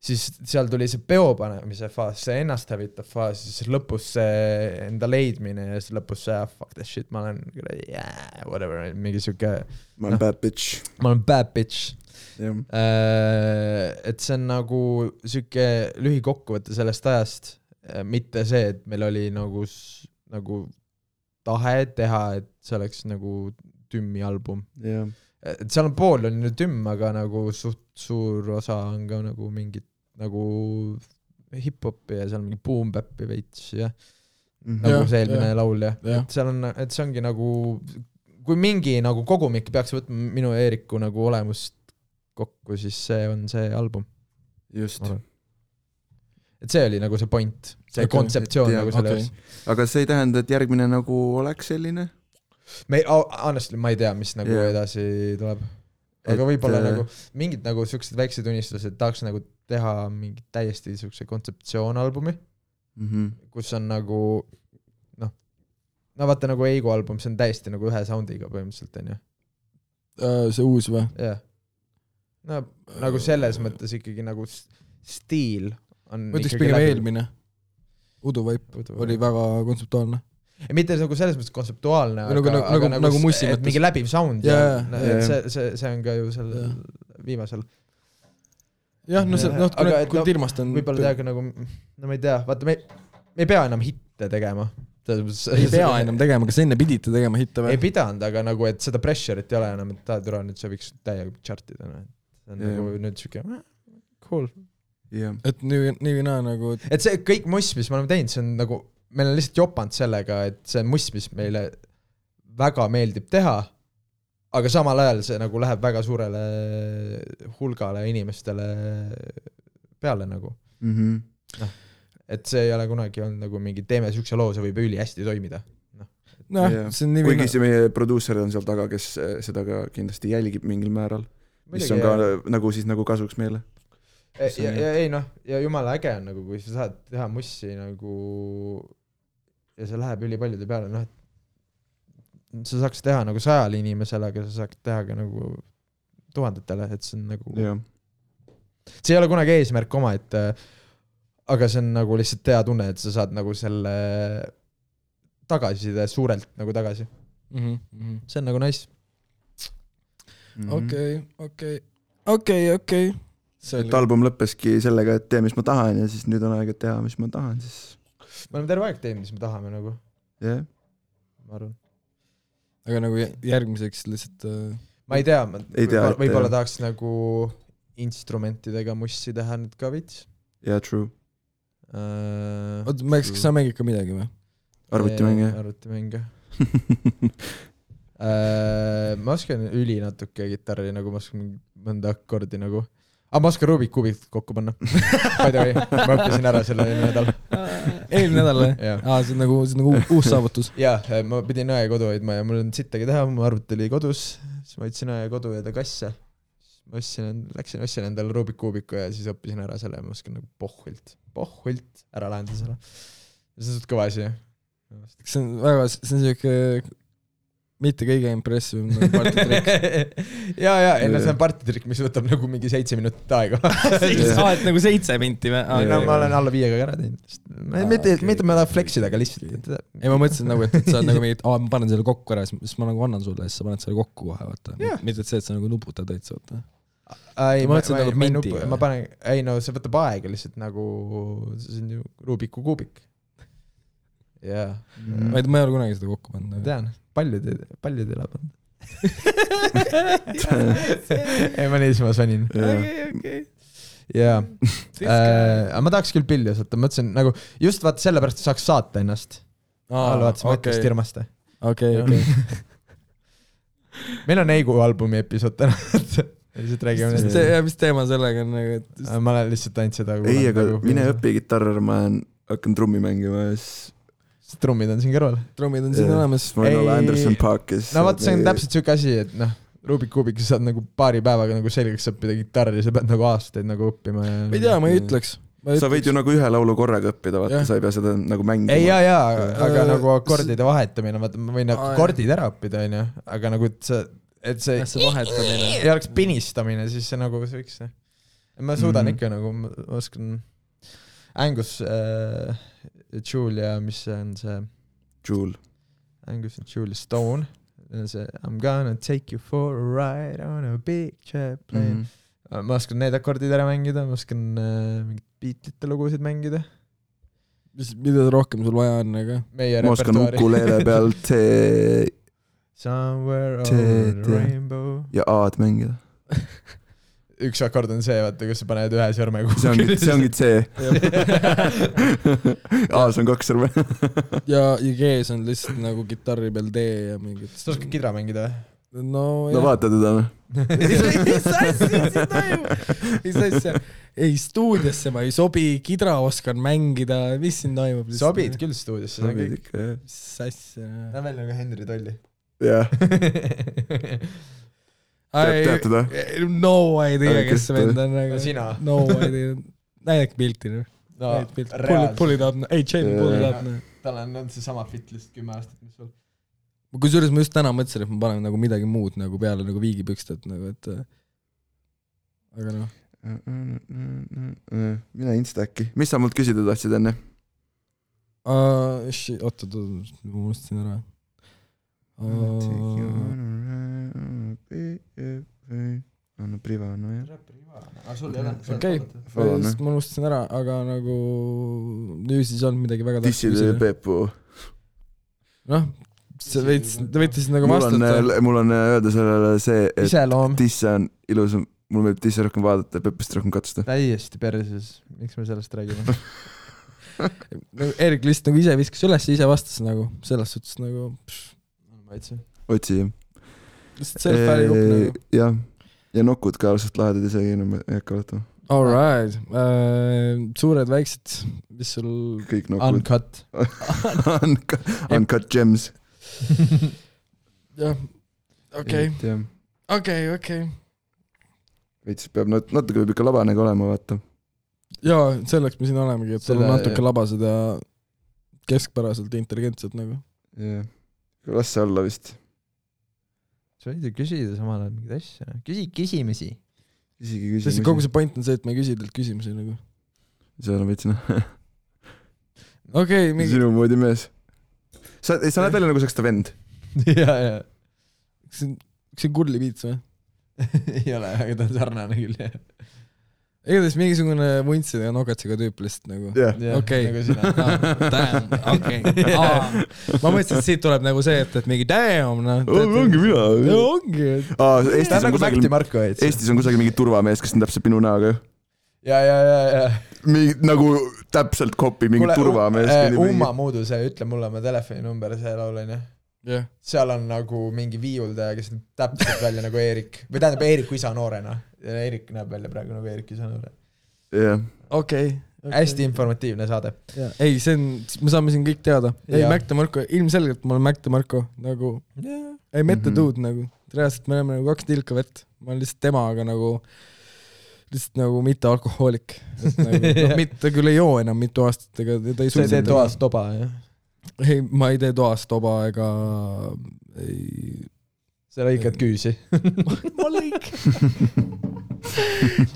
Siis seal tuli see peopanemise faas, see ennast hävitav faas, siis lõpus see enda leidmine ja siis lõpus see fuck that shit, ma olen whatever, mingi siuke ma olen bad bitch. Ma olen bad bitch. Yeah. Et see on nagu siuke lühikokkuvõte sellest ajast, mitte see, et meil oli nagu tahe teha, et see oleks nagu Tümmi album. Yeah. Et seal on pool on ju Tümm, aga nagu suht suur osa on ka nagu mingit nagu hip-hopi ja seal mingi boom-bappi veits ja nagu see eelmine laul ja. Et seal on, et see ongi nagu kui mingi nagu kogumik peaks võtma minu ja Eeriku nagu olemust kokku, siis see on see album. Just. Et see oli nagu see point, see kontseptsioon nagu selles. Aga see ei tähenda, et järgmine nagu oleks selline? Honestly, ma ei tea, mis nagu edasi tuleb. Aga võib-olla nagu mingid nagu siuksed väiksed unistused tahaks nagu teha mingi täiesti siukse kontseptsioonalbumi, kus on nagu no vaata nagu Eigo album, see on täiesti nagu ühe soundiga põhimõtteliselt, on ju? See uus või? Jah. No nagu selles mõttes ikkagi nagu stiil on mõtleks pigem eelmine. Udu Vaip oli väga kontseptuaalne. mitte nagu selles mõttes kontseptuaalne, aga nagu mussi et mingi läbiv sound yeah, ja see on ka ju seal viimasel. Jah, no see, kui Tirmast on... Võib-olla teaga nagu, no ma ei tea, vaata, me ei pea enam hitte tegema. Ei pea enam tegema, kas enne pidite tegema hitte või? Ei pidanud, aga nagu, et seda pressure'it ei ole enam, et türa nüüd see võiks täiega chartida. See on nagu nüüd siuke, cool. Et nii või naa nagu... Et see kõik muss, mis me oleme teinud, see on nagu... Meil on lihtsalt jopanud sellega, et see muss, mis meile väga meeldib teha, aga samal ajal see nagu läheb väga suurele hulgale inimestele peale nagu. No, et see ei ole kunagi olnud nagu mingi teeme sükse loo, see võib üli hästi toimida. See on nii kuigi see meie produuser on seal taga, kes seda ka kindlasti jälgib mingil määral, mis on ka nagu siis nagu kasuks meile. Ja jumala äge on nagu, kui sa saad teha mussi nagu ja see läheb üli paljude peale, et sa saaks teha nagu 100 inimesele, aga sa saaks teha ka nagu 1000-tele, et see on nagu see ei ole kunagi eesmärk oma, et aga see on nagu lihtsalt hea tunne, et sa saad nagu selle tagasiside suurelt nagu tagasi. See on nagu nice. Okei. Et album lõppeski sellega, et tee, mis ma tahan ja siis nüüd on aeg, et teha, mis ma tahan, siis... Me oleme terve aeg teinud, mis me tahame nagu. Jah. Ma arvan. Aga nagu järgmiseks lihtsalt... Ma ei tea, võib-olla tahaks nagu instrumentidega mussi teha nüüd ka vits. Yeah, true. Kas sa mängid ka midagi või? Arvutimänge. Ma oskan üli natuke gitarri, nagu ma oskan mõnda akordi nagu. Ma oskan Rubik Kubik kokku panna. By the way, ma õppisin ära selle eelmine nädal. Eelmine nädal või? See on nagu uus saavutus. Jah, ma pidin õe kodu hoidma ja mul on sittagi teha, mu arvut oli kodus, siis ma võtsin õe kodu ja ta kasse. Ma ostsin endale Rubik Kubiku ja siis õppisin ära selle ja ma oskan nagu pohhult ära lahendada selle. See on suht kõva asi. See on siuke mitte kõige impressive partitrikk. See on partitrikk, mis võtab nagu mingi 7 minutit aega. Et nagu 7 minti või? Ma olen alla 5 ära teinud. Mitte ma tahan flexida, aga lihtsalt. Ei, ma mõtlesin nagu, et sa nagu mingid, ma panen selle kokku ära, siis ma nagu annan sulle, siis sa paned selle kokku kohe, vaata. Mitte et see, et sa nagu nuputad täitsa, vaata. Ma panen, see võtab aega lihtsalt nagu, see on ju Rubiku kuubik. Ma ei ole kunagi seda kokku pannud. Tean, paljud ei lapanud. Ma niisma sonin. Ma tahaks küll pilli osata, mõtlesin nagu, just vaata sellepärast saaks saata ennast. Vaatasime mõtlust Irmaste. Okei. Meil on Eigu albumi episood täna. Mis teema sellega on? Ma olen lihtsalt ainult seda. Ei, aga mine õpi gitarr, ma hakkan trummi mängima ja siis trummid on siin kõrval. Trummid on siin olemas. Ma olen Anderson Parkis. No vaat see on täpselt siuke asi, et Rubik Kubik sa saad nagu paari päevaga nagu selgeks õppida gitarri, sa pead nagu aastaid nagu õppima. Ei tea, ma ei ütleks. Sa võid ju nagu ühe laulu korraga õppida, vaata, sa ei pea seda nagu mängima. Ei, aga nagu akordide vahetamine, vaata, ma võin akordid ära õppida, aga nagu, et see vahetamine ei oleks pinistamine, siis see nagu võiks. Ma suudan ikka nagu, ma oskan Angus Julia, mis on see Angus Julia Stone, see I'm gonna take you for a ride on a big jet plane. Ma oskan need akordid ära mängida, ma oskan mingid Beatlite lugusid mängida. Mida rohkem sul vaja on, aga? Ma oskan ukuleele peal Somewhere over the rainbow ja A-d mängida. Üks akord on see, vaata, kus sa paned ühe sõrme kuhugi. See ongi C. A-s on 2 sõrme. ja G-s on lihtsalt nagu gitarri peal D ja mingid. Sa oskad kidra mängida või? No vaata teda või? Ei, stuudiosse ma ei sobi, kidra oskan mängida, mis siin toimub? Sobid küll stuudiosse, see on kõik. Mis asja? Ta on veel nagu Henry Tolli. Jah. Tead teda? No idea, kes see vend on. Sina? No idea. Näidake pilti. Pull it up. Ei, Jamie, pull it up. Tal on see sama fit lihtsalt 10 aastat, mis sul. Kusjuures ma just täna mõtlesin, et ma panen nagu midagi muud nagu peale nagu viigipükstet nagu, et aga noh. Mina Insta äkki. Mis sa mult küsida tahtsid enne? Oota, ma unustasin ära. Anna Privano, jah. Okei, ma unustasin ära, aga nagu nüüd siis on midagi väga Tisside Peepu. Noh, sa võite siis nagu vastata. Mul on öelda sellele see, et Iseloom. Tisse on ilus, mul meeldib Tisse rohkem vaadata ja Peepust rohkem katsuda. Täiesti perses, miks me sellest räägime? Erik lihtsalt nagu ise viskas üles ja ise vastas nagu, selles suhtes nagu otsi, jah. Lihtsalt self-fääri jupp nagu. Jah, ja nokud ka ausalt lahedad isegi, ei hakka vaatama. All right, suured väiksed, mis sul... Kõik nokud. Uncut. Uncut gems. jah, okei. Veits peab natuke ikka labanega olema, vaata. Jaa, selleks me siin olemegi, et sul on natuke labased ja keskpäraselt intelligentsed nagu. Jah, las see olla vist. Sa võid ju küsida samal ajal mingid asja. Küsimisi. Sest kogu see point on see, et me ei küsi teilt küsimusi nagu. See on veitsina. Okei, sinu moodi mees. Sa näed välja nagu saaks ta vend. Jaa. Kas see on Kurli Piits või? Ei ole, aga ta on sarnane küll, jah. Igatahes mingisugune vuntside ja nogatsiga tüüp lihtsalt nagu. Okei. Nagu sina. Damn, okei. Ma mõtlesin, et siit tuleb nagu see, et mingi damn, noh. Ongi mina. Ongi. Ta on nagu Mäkti Marko. Eestis on kusagil mingi turvamees, kes on täpselt minu näoga. Ja. Nagu täpselt kopi mingi turvamees. Umma muudu see, ütle mulle oma telefoninumber, see laulane. Seal on nagu mingi viiuldaja, kes näeb täpselt välja nagu Eerik. Või tähendab Eeriku isa noorena. Eerik näeb välja praegu nagu Eerik isa noore. Jah. Okei. Hästi informatiivne saade. Ei, see on, me saame siin kõik teada. Ei, Mäkti Marko, ilmselgelt ma olen Mäkti Marko. Nagu, ei mette duud nagu. Reaalselt me oleme nagu 2 tilka vett. Ma olen lihtsalt temaga nagu lihtsalt nagu mitte alkohoolik. Ta küll ei joo enam mitu aastat. Sa ei tee toas toba, jah? Ei, ma ei tee toas toba ega ei... Sa lõikad küüsi. Ma lõik.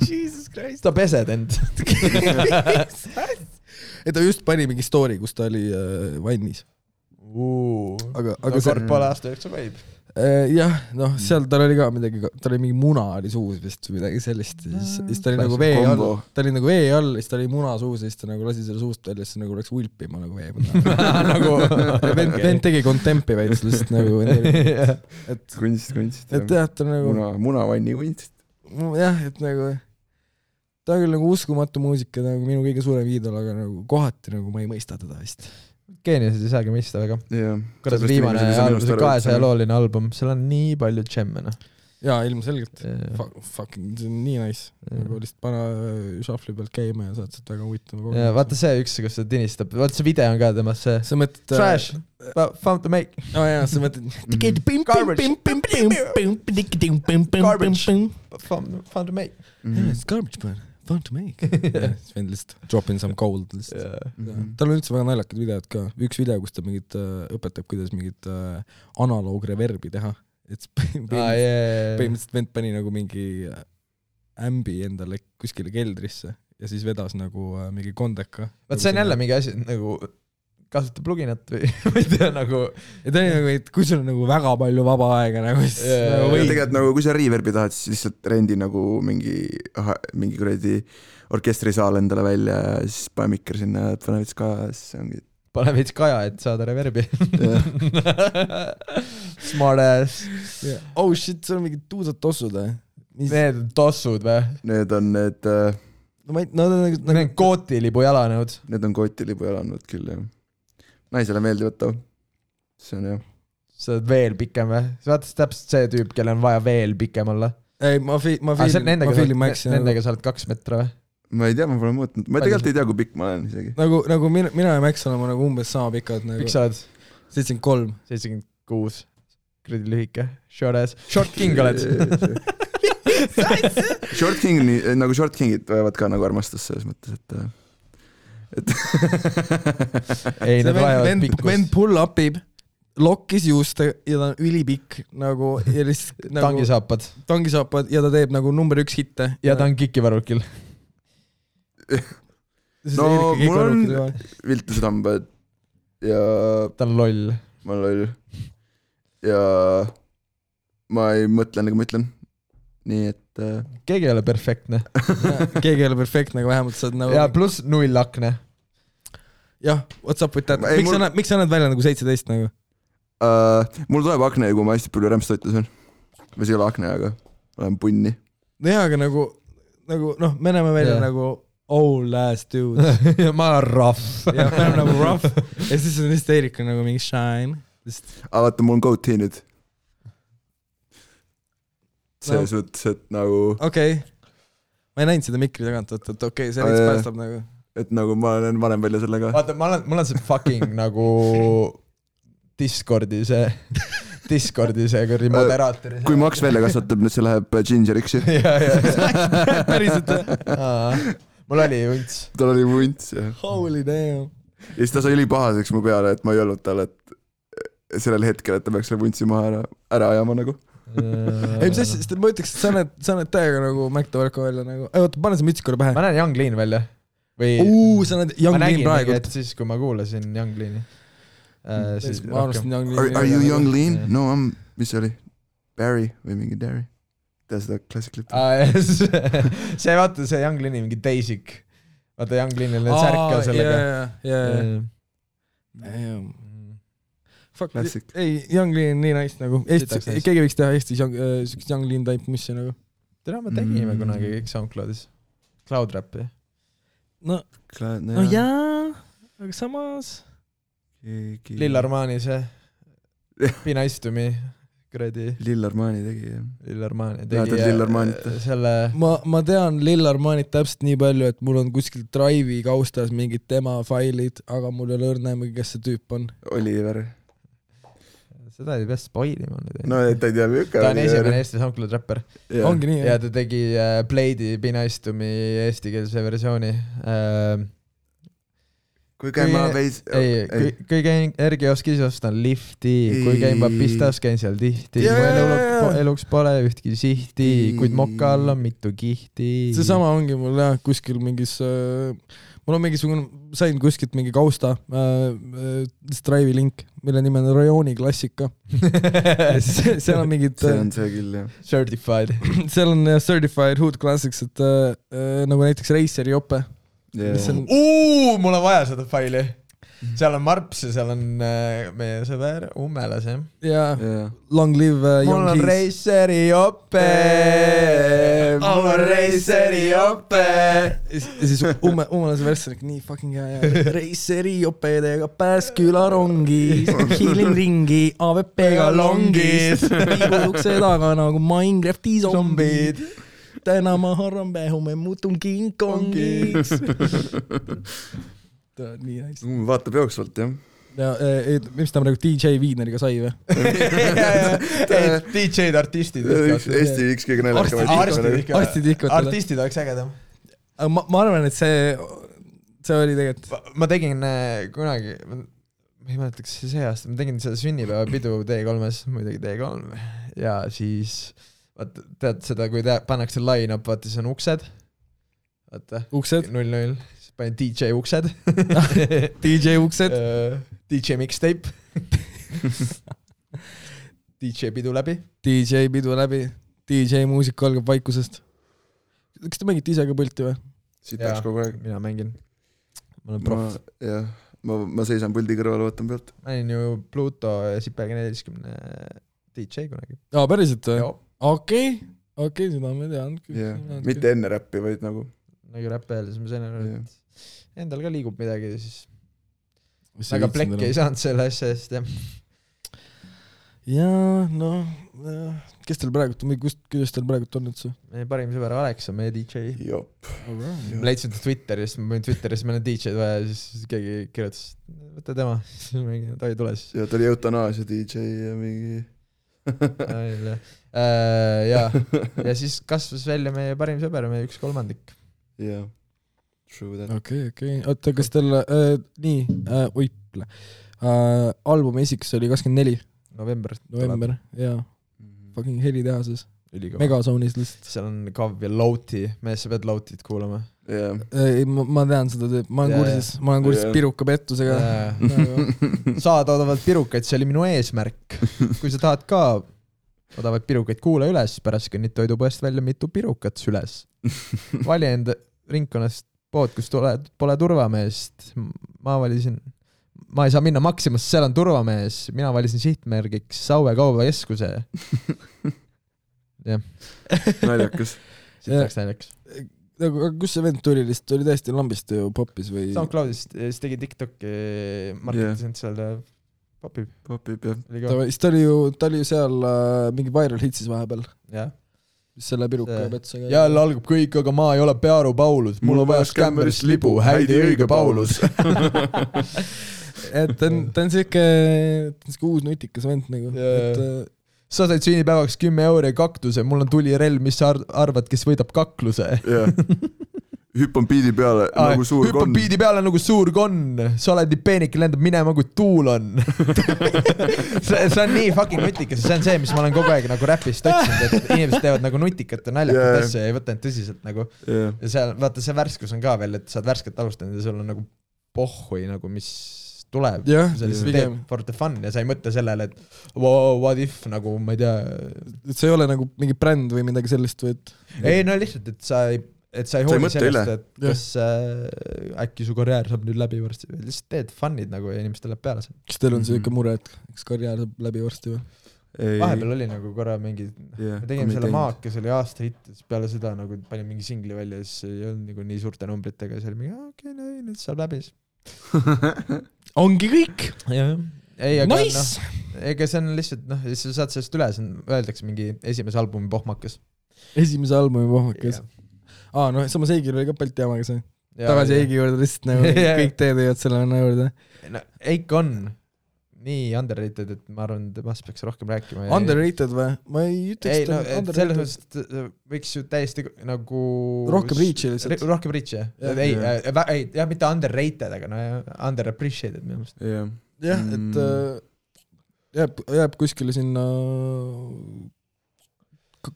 Jesus Christ. Ta pesed end. Ta just pani mingi story, kus ta oli vannis. Aga kord poole aasta jooksul võib. Jah, noh, seal tal oli ka midagi, tal oli mingi muna oli suus vist või midagi sellist, siis ta oli nagu vee all, siis ta oli muna suus ja siis ta nagu lasi selle suust välja, siis nagu läks ulpima nagu vee nagu vend tegi kontempi veits lihtsalt nagu kunst et jah, ta nagu munavanni kunst jah, et nagu ta on küll nagu uskumatu muusika nagu minu kõige suurem iidol, aga nagu kohati nagu ma ei mõista teda vist Geeniused ei saagi mõista väga. Kuidas viimane album, see 200-looline album, seal on nii palju džemme, noh. Jaa, ilmselgelt. Fucking, see on nii nice. Nagu lihtsalt pana shuffli pealt käima ja saad sealt väga huvitama. Ja vaata see üks, kus ta tinistab. Vaata see video on ka temast see. Sa mõtled... Trash, found to make. Jaa, sa mõtled... Garbage, found to make. It's garbage, man. Fun to make. Sven lihtsalt drop in some gold lihtsalt. Tal on üldse väga naljakad videod ka. Üks video, kus ta mingit õpetab, kuidas mingit analoogreverbi teha. Et põhimõtteliselt vend pani nagu mingi ämbi endale kuskile keldrisse ja siis vedas nagu mingi kondeka. Vaat see on jälle mingi asi, nagu kasuta pluginat või ei tea nagu... Ja ta oli nagu, et kui sul on nagu väga palju vaba aega nagu... Tegelikult nagu, kui sa reverbi tahad, siis lihtsalt rendi nagu mingi kuradi orkestrisaal endale välja ja siis pane mikker sinna ja pane veits kaja ja siis ongi... Pane veits kaja, et saada reverbi. Smart ass. Oh shit, see on mingid tuusad tossud, või? Need on tossud, või? Need on need... Need on kootilibu jalanõud. Need on kootilibu jalanõud küll, jah. Naisele meeldivad too. See on jah. Sa oled veel pikem või? Sa vaatad täpselt see tüüp, kelle on vaja veel pikem olla. Ei, ma fiilin Maxi. Nendega sa oled 2 metra või? Ma ei tea, ma pole mõõtnud. Ma tegelikult ei tea, kui pikk ma olen isegi. Nagu mina ja Max oleme nagu umbes sama pikad. Pikk sa oled? 73. 76. Kredi lühike. Short ass. Short king oled. Short king, nagu short kingid võivad ka nagu armastus selles mõttes, et ei, need vajavad pikkust. Vend pull-upib, lokkis juuste ja ta on ülipikk nagu, ja lihtsalt nagu tangisaapad ja ta teeb nagu number 1 hitte. Ja ta on kikivarukil. No, mul on viltused hambad ja ta on loll. ma olen loll. Ja ma ei mõtle, nagu ma ütlen. Nii et keegi ei ole perfektne. Keegi ei ole perfektne, aga vähemalt saad nagu... Ja pluss 0 akne. Jah, what's up with that? Miks sa näed välja nagu 17 nagu? Mul tuleb akne, kui ma hästi palju rämpstoitu söön. Või see ei ole akne, aga olen punni. No jaa, aga nagu noh, me näeme välja nagu old ass dude. Ja ma olen rough. Ja me oleme nagu rough. Ja siis on Erika nagu mingi shine. Aga vaata, mul on goatee nüüd. See suhtes, et nagu... Okei. Ma ei näinud seda mikri tagant, et okei, see veits päästab nagu... Et nagu ma olen vanem välja sellega. Vaata, mul on see fucking nagu Discordi see kurdi moderaatori. Kui Max välja kasvatab, nüüd see läheb gingeriks. Päriselt. Mul oli vunts. Tal oli vunts, jah. Holy damn. Ja siis ta sai ülipahaseks mu peale, et ma ei olnud tal, et sellel hetkel, et ta peaks selle vuntsi maha ära ajama nagu. Ei, mis asja, sest ma ütleks, et sa näed täiega nagu Mac Toverko välja nagu. Ei, oota, pane see mütsi korra pähe. Ma näen Young Lean välja. Sa näed Young Lean praegu. Et siis, kui ma kuulasin Young Leani. Ma arvasin Young Lean. Are you Young Lean? No, mis oli? Barry või mingi Derry? Tea seda klassiklipi? See vaata, see Young Leani mingi Daisik. Vaata Young Leanil need särka sellega. Fuck, ei, Young Lean nii nice nagu. Keegi võiks teha Eestis Young Lean type missi nagu. Tere, me tegime kunagi kõik SoundCloudis. Cloud Rapi. No jaa, aga samas Lill Armani see Be Nice to Me kuradi Lill Armani tegi Lill Armani tegi selle ma tean Lill Armanit täpselt nii palju, et mul on kuskil Drive'i kaustas mingid tema failid, aga mul ei ole õrnämegi, kes see tüüp on. Oliver. Seda ei pea spoilima nüüd. No ta ei tea mükka. Ta on esimene Eesti SoundCloud rapper. Ongi nii, ja ta tegi Blade'i Be Nice to Me eestikeelse versiooni. Kui käin ma veis... Kui käin Ergioskis ostan lifti, kui käin ma pistas, käin seal tihti. Mu eluks pole ühtki sihti, kuid moka all on mitu kihti. See sama ongi mul jah, kuskil mingis... Mul on mingisugune, sain kuskilt mingi kausta Drive'i link, mille nime on Rajooni klassika. Seal on mingid... See on see küll, jah. Certified. Seal on Certified Hood Classics, et nagu näiteks Raceri jope. Mul on vaja seda faili. Seal on Marps ja seal on meie sõber Ummelas, jah? Jaa, Long Live Young Keys. Mul on Raceri jope. Mul on Raceri jope. Ja siis Ummelase versionik nii fucking hea. Raceri jopedega Pääsküla rongis, hiilin ringi AVP-ga longis, liigud ukse taga nagu Minecrafti zombid. Täna ma harran hume muutun King Kongiks. Ta on nii nice. Vaatab jooksvalt, jah. Ja mis ta praegu DJ Viidneriga sai või? DJ-d, artistid. Eesti üks kõige näljaka. Artistid oleks ägedam. Ma arvan, et see oli tegelikult... Ma tegin kunagi, ma ei mäletaks see aasta, ma tegin seda sünnipäevapidu D3-s, muidugi D3. Ja siis, tead seda, kui pannakse line-up, vaata, siis on uksed. Vaata, 0-0. Panin DJ uksed. DJ uksed. DJ mixtape. DJ pidu läbi. DJ pidu läbi. DJ muusika algab vaikusest. Kas te mängite ise ka pulti või? Siit läks kogu aeg. Mina mängin. Ma olen prof. Jah, ma seisan puldi kõrval, võtan pealt. Ma olin ju Pluto ja Sipega 40 DJ kunagi. Päriselt või? Okei, seda ma tean. Mitte enne räppi, vaid nagu räppi öelda, siis ma sain et endal ka liigub midagi, siis väga plekki ei saanud selle asja eest, jah. Jaa, noh, kes teil praegu, kuidas teil praegu on üldse? Meie parim sõber Alex on meie DJ. Jop. Ma leidsin ta Twitterist, ma panin Twitterist, meil on DJ-d vaja, siis keegi kirjutas, võtta tema, ta ei tule siis. Ja ta oli eutanaasia DJ ja mingi... ja siis kasvas välja meie parim sõber, meie 1/3. Jah, true that. Okei. Oota, kas teil albumi esiks oli 24? November, jaa. Fucking Helitehases. Megazoonis lihtsalt. seal on Kav ja Louti, mees, sa pead Loutit kuulama. Ei, ma tean seda, ma olen kursis piruka pettusega. Saada pirukaid, see oli minu eesmärk. Kui sa tahad ka odavaid pirukaid, kuula üles, pärast kõnnid toidupoest välja mitu pirukat süles. Vali enda ringkonnast pood, kus pole turvameest. Ma ei saa minna Maximas, seal on turvamees. Mina valisin sihtmärgiks Saue kaubakeskuse. Jah. Naljakas. Siit läks naljakas. Aga kus see vend tuli lihtsalt? Oli täiesti lambist ju popis või? SoundCloudist, siis tegi TikTok'i, marketisin seal popib, jah. Ta oli ju seal mingi viral hitsis vahepeal. Jah. Mis selle piruka petsusega. Jälle algab kõik, aga ma ei ole Pearu Paulus. Mul on vaja skämmerist libu, häidi õige Paulus. Et ta on siuke uus nutikas vend nagu. Sa said sünnipäevaks 10 € ja kaktuse, mul on tulirelv, mis sa arvad, kes võidab kakluse? Hüppan biidi peale nagu suur konn. Hüppan biidi peale nagu suur konn. Sa oled nii peenik, lendab minema, kui tuul on. see on nii fucking nutikas. See on see, mis ma olen kogu aeg nagu räpist otsinud, et inimesed teevad nagu nutikat ja naljakat asja ja ei võta end tõsiselt nagu. Ja seal, vaata see värskus on ka veel, et sa oled värsket alustanud ja sul on nagu pohhui nagu, mis tuleb for the fun ja sa ei mõtle sellele, et what if nagu, ma ei tea, et see ei ole nagu mingi bränd või midagi sellist või et ei, no lihtsalt, et sa ei hooli sellest, et kas äkki su karjäär saab nüüd läbi varsti või lihtsalt teed fun'id nagu ja inimestel läheb peale see. Kas teil on see ikka mure, et kas karjäär saab läbi varsti või? Vahepeal oli nagu korra mingi me tegime selle Maakes, oli aasta hitt peale seda nagu panin mingi singli välja ja siis ei olnud nagu nii suurte numbritega ja see oli mingi okei, nüüd saab läbi ongi kõik. Ei, aga nice. Ega see on lihtsalt, sa saad sellest üle, öeldakse mingi esimese albumi pohmakas. Esimese albumi pohmakas. Samas Eigil oli ka Balti jamaga see. Tagasi Eigi juurde lihtsalt nagu kõik teed jõud selle juurde. Eik on nii underrated, et ma arvan, et temast peaks rohkem rääkima. Underrated või? Ma ei ütleks underrated. Selles mõttes võiks ju täiesti nagu rohkem reach'i lihtsalt. Rohkem reach'i, jah, mitte underrated, aga underappreciated minu meelest. Jah, et jääb kuskile sinna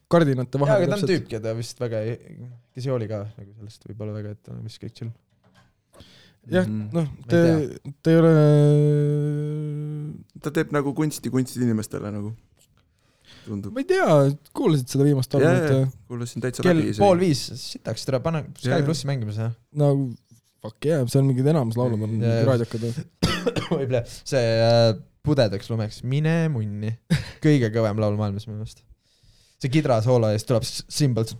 kardinate vahel. Aga ta on tüüp, keda vist väga kes ei oli ka nagu sellest võib-olla väga, et on vist kõik chill. Jah, ta ei ole ta teeb nagu kunsti inimestele nagu tundub. Ma ei tea, kuulasid seda viimast albumit? Kuulasin täitsa läbi. Kell 4:30 sitaks, tere, pane Sky Plussi mängimise. No fuck yeah, see on mingid enamus laulud on raadiokad. Võib-le, see pudedaks lumeks, mine munni. Kõige kõvem laul maailmas minu meelest. See kidra soola eest tuleb Symbols.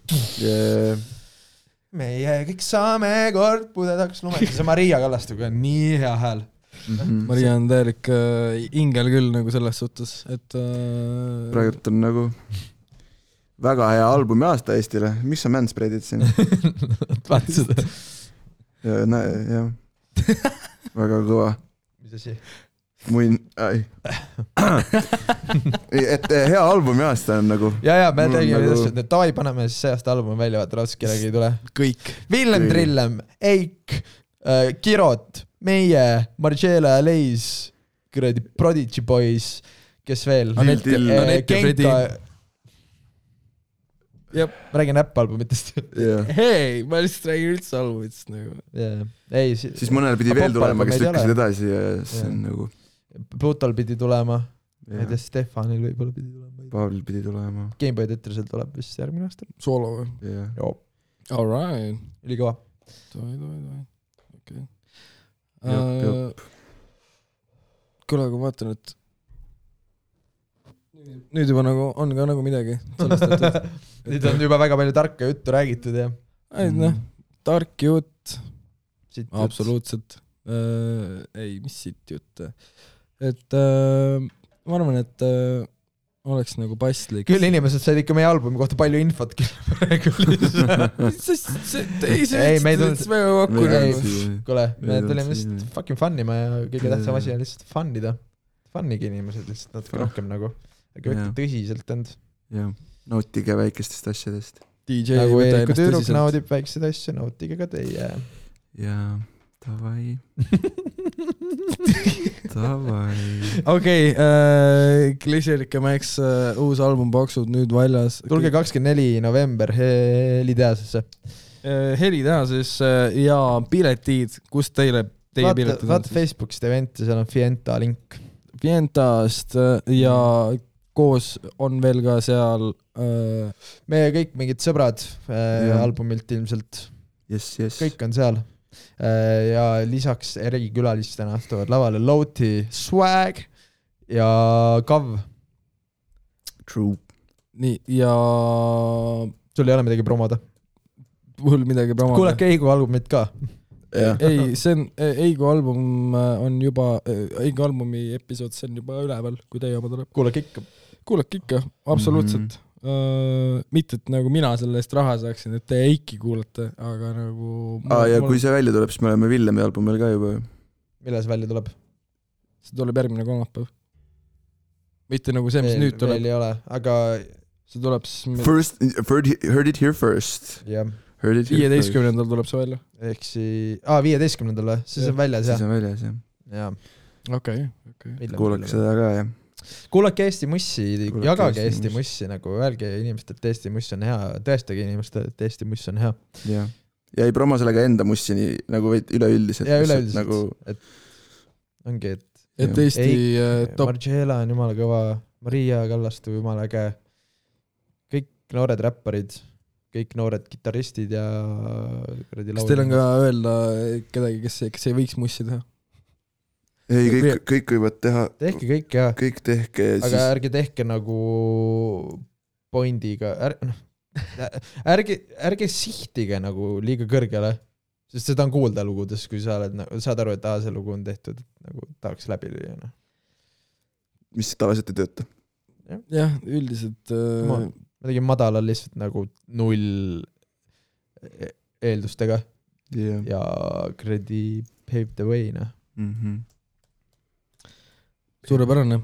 Meie kõik saame kord pudedaks lumeks. See Maria Kallastuga on nii hea hääl. Maria on täielik ingel küll nagu selles suhtes, et praegult on nagu väga hea albumi aasta Eestile. Mis sa manspreadid siin? Vaata seda. Jah. Väga kõva. Mis asi? Et hea albumi aasta on nagu ja me tegime nagu... et davai, paneme siis see aasta albumi välja, vaata raudselt kellegi ei tule kõik Villem Trillem, Eik, Kirot, meie, Margiela, Leis, kuradi Prodigy Boys, kes veel Genka ma räägin äpp-albumitest hei, ma lihtsalt räägin üldse albumitest nagu siis mõnel pidi veel tulema, kes lükkasid edasi ja see on nagu Plutal pidi tulema, ma ei tea, Stefanil võib-olla pidi tulema, Paavlil pidi tulema, Gameboy Tetrisel tuleb vist järgmine aasta soolo või? Joo. Alright. Ülikõva. Okay. Kuule, aga ma vaatan, et nüüd juba nagu on ka nagu midagi sellest, nüüd on juba väga palju tarka juttu räägitud ja tark jutt absoluutselt ei, mis siit jutt et ma arvan, et oleks nagu paslik küll inimesed said ikka meie albumi kohta palju infot kuule, me tulime lihtsalt fucking fun'ima ja kõige tähtsam asi on lihtsalt fun'ida fun'igi inimesed lihtsalt natuke rohkem nagu aga võtta tõsiselt end nautige väikestest asjadest DJ nagu Eeriku tüüruk naudib väikseid asju, nautige ka teie ja davai okei, Klišerike Max uus album Paksud nüüd väljas. Tulge 24. november Heliteasesse. Heliteasesse ja piletid, kus teie piletid on? Vaata Facebookist eventi, seal on Fienta link. Fientast ja koos on veel ka seal meie kõik mingid sõbrad albumilt ilmselt. Yes. Kõik on seal. Ja lisaks erikülalistena astuvad lavale Loti, Swag ja Kav. True. Nii, ja sul ei ole midagi promoda? Mul midagi promoda. Kuulake Eigu albumit ka. Ei, see on Eigu album on juba Eigu albumi episood, see on juba üleval, kui teie oma tuleb. Kuulake ikka, absoluutselt. Mitte, et nagu mina selle eest raha saaksin, et te Eiki kuulate, aga nagu ja kui see välja tuleb, siis me oleme Villemi albumil ka juba. Millal see välja tuleb? See tuleb järgmine kolmapäev. Mitte nagu see, mis nüüd tuleb. Veel ei ole, aga see tuleb First, heard it here first. Jah. 15. tuleb see välja. Ehk 15. siis on väljas, jah. Siis on väljas, jah. Okei. Kuulake seda ka, jah. Kuulake Eesti Mussi, jagage Eesti Mussi, nagu öelge inimestelt, et Eesti Muss on hea, tõestage inimestelt, et Eesti Muss on hea. Ja ei promo sellega enda Mussi nii, nagu üleüldiselt. Ja üleüldiselt, nagu, et ongi, et Eesti top. Margiela on jumala kõva, Maria Kallastu jumala äge, kõik noored räpparid, kõik noored kitarristid ja kas teil on ka öelda kedagi, kes ei võiks Mussi teha? Ei, kõik võivad teha. Tehke kõik, jah. Kõik tehke. Aga ärge tehke nagu pointiga. Ärge sihtige nagu liiga kõrgele, sest seda on kuulda lugudes, kui sa saad aru, et see lugu on tehtud, et nagu tahaks läbi lüüa. Mis tavaliselt ei tööta? Jah, üldiselt ma tegin madalal lihtsalt nagu 0 eeldustega ja kredi paved the way, Suurepärane.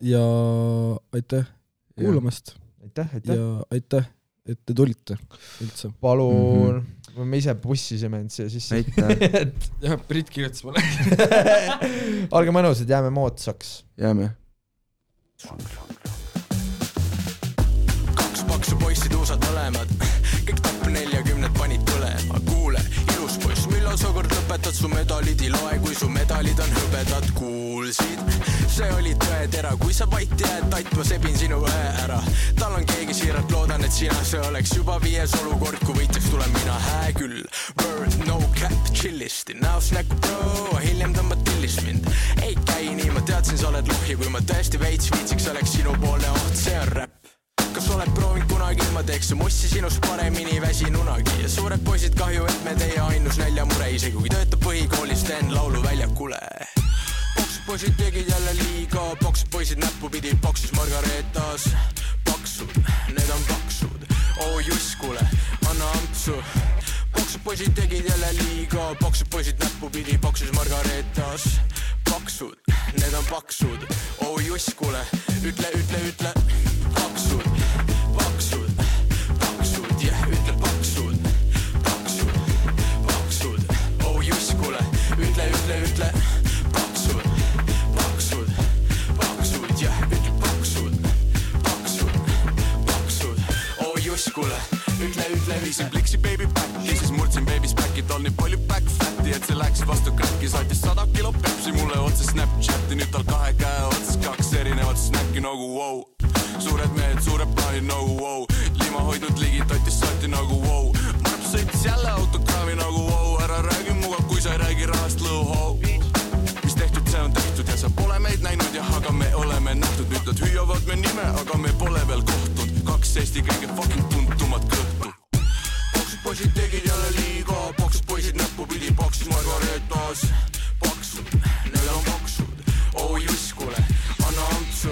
Ja aitäh kuulamast. Aitäh. Ja aitäh, et te tulite üldse. Palun. Me ise bussisime end siia sisse. Aitäh. Jah, Brit kirjutas mulle. Olge mõnusad, jääme moodsaks. Jääme. 2 paksu poissi tuusad mõlemad. Kõik tapp 40 panid põlema. Kuule, ilus poiss, millal sa kord lõpetad su medalid ei loe, kui su medalid on hõbedad, kuulsid? See oli tõetera, kui sa vait jääd, tait ma sebin sinu õe ära. Tal on keegi siiralt, loodan, et sina see oleks juba 5. olukord, kui võitjaks tulen mina, hää küll. Bird, no cap, chillisti, näos näkku pro, hiljem tõmbad tillist mind. Ei käi nii, ma teadsin, sa oled lohi, kui ma tõesti veits viitsiks oleks sinu poole oht, see on räpp. Kas oled proovinud kunagi, ma teeks su mussi sinust paremini väsin unagi. Ja suured poisid kahju, et me teie ainus näljamure, isegi kui töötab põhikoolis, teen laulu väljakule. Paksud poisid tegid jälle liiga, paksud poisid näppu pidi paksus Margaretas. Paksud, need on paksud, juss, kuule, anna ampsu. Paksud poisid tegid jälle liiga, paksud poisid näppu pidi paksus Margaretas. Paksud, need on paksud, juss, kuule, ütle. Paksud, jah, ütle paksud. Paksud, juss, kuule, ütle. Paksud, jah, ütle paksud. Juss, kuule, ütle. Viisin pliksi baby backi, siis murdsin baby's back'i, tal nii palju back fatti, et see läks vastu kräkki, saatis 100 kilo pepsi mulle otse Snapchati, nüüd tal 2 käe otsas 2 erinevat snacki nagu wow. Suured mehed, suured plaanid nagu wow. Lima hoidnud ligi, totis salti nagu wow. Marp sõitis jälle autokraami nagu wow. Ära räägi muga, kui sa ei räägi rahast lõuhau. Mis tehtud, see on tehtud ja sa pole meid näinud ja aga me oleme nähtud. Nüüd nad hüüavad me nime, aga me pole veel kohtunud. 2 Eesti kõige fucking tuntumad kõhtu. Paksud poisid tegid jälle liiga. Paksud poisid näppu pidi paksus Margaretas. Paksud, need on paksud. Juss, kuule, anna ampsu.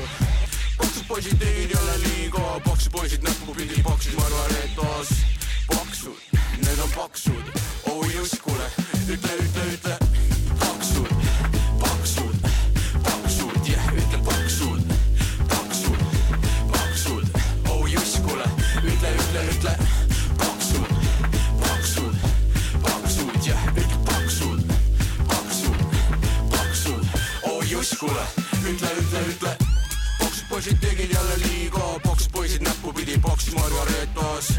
Paksud poisid tegid jälle liiga. Paksud poisid näppu pidi paksus Margaretas. Paksud, need on paksud. Juss, kuule, ütle. Paksud, jah, ütle paksud. Paksud, juss, kuule, ütle. Paksud, kuule, ütle Poksid poisid tegid jälle liiga Poksid poisid näppu pidi Poksis Margaretas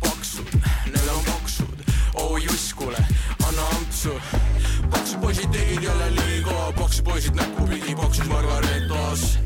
Paksud, need on paksud Oh juss, kuule, anna ampsu Poksid poisid tegid jälle liiga Poksid poisid näppu pidi Poksis Margaretas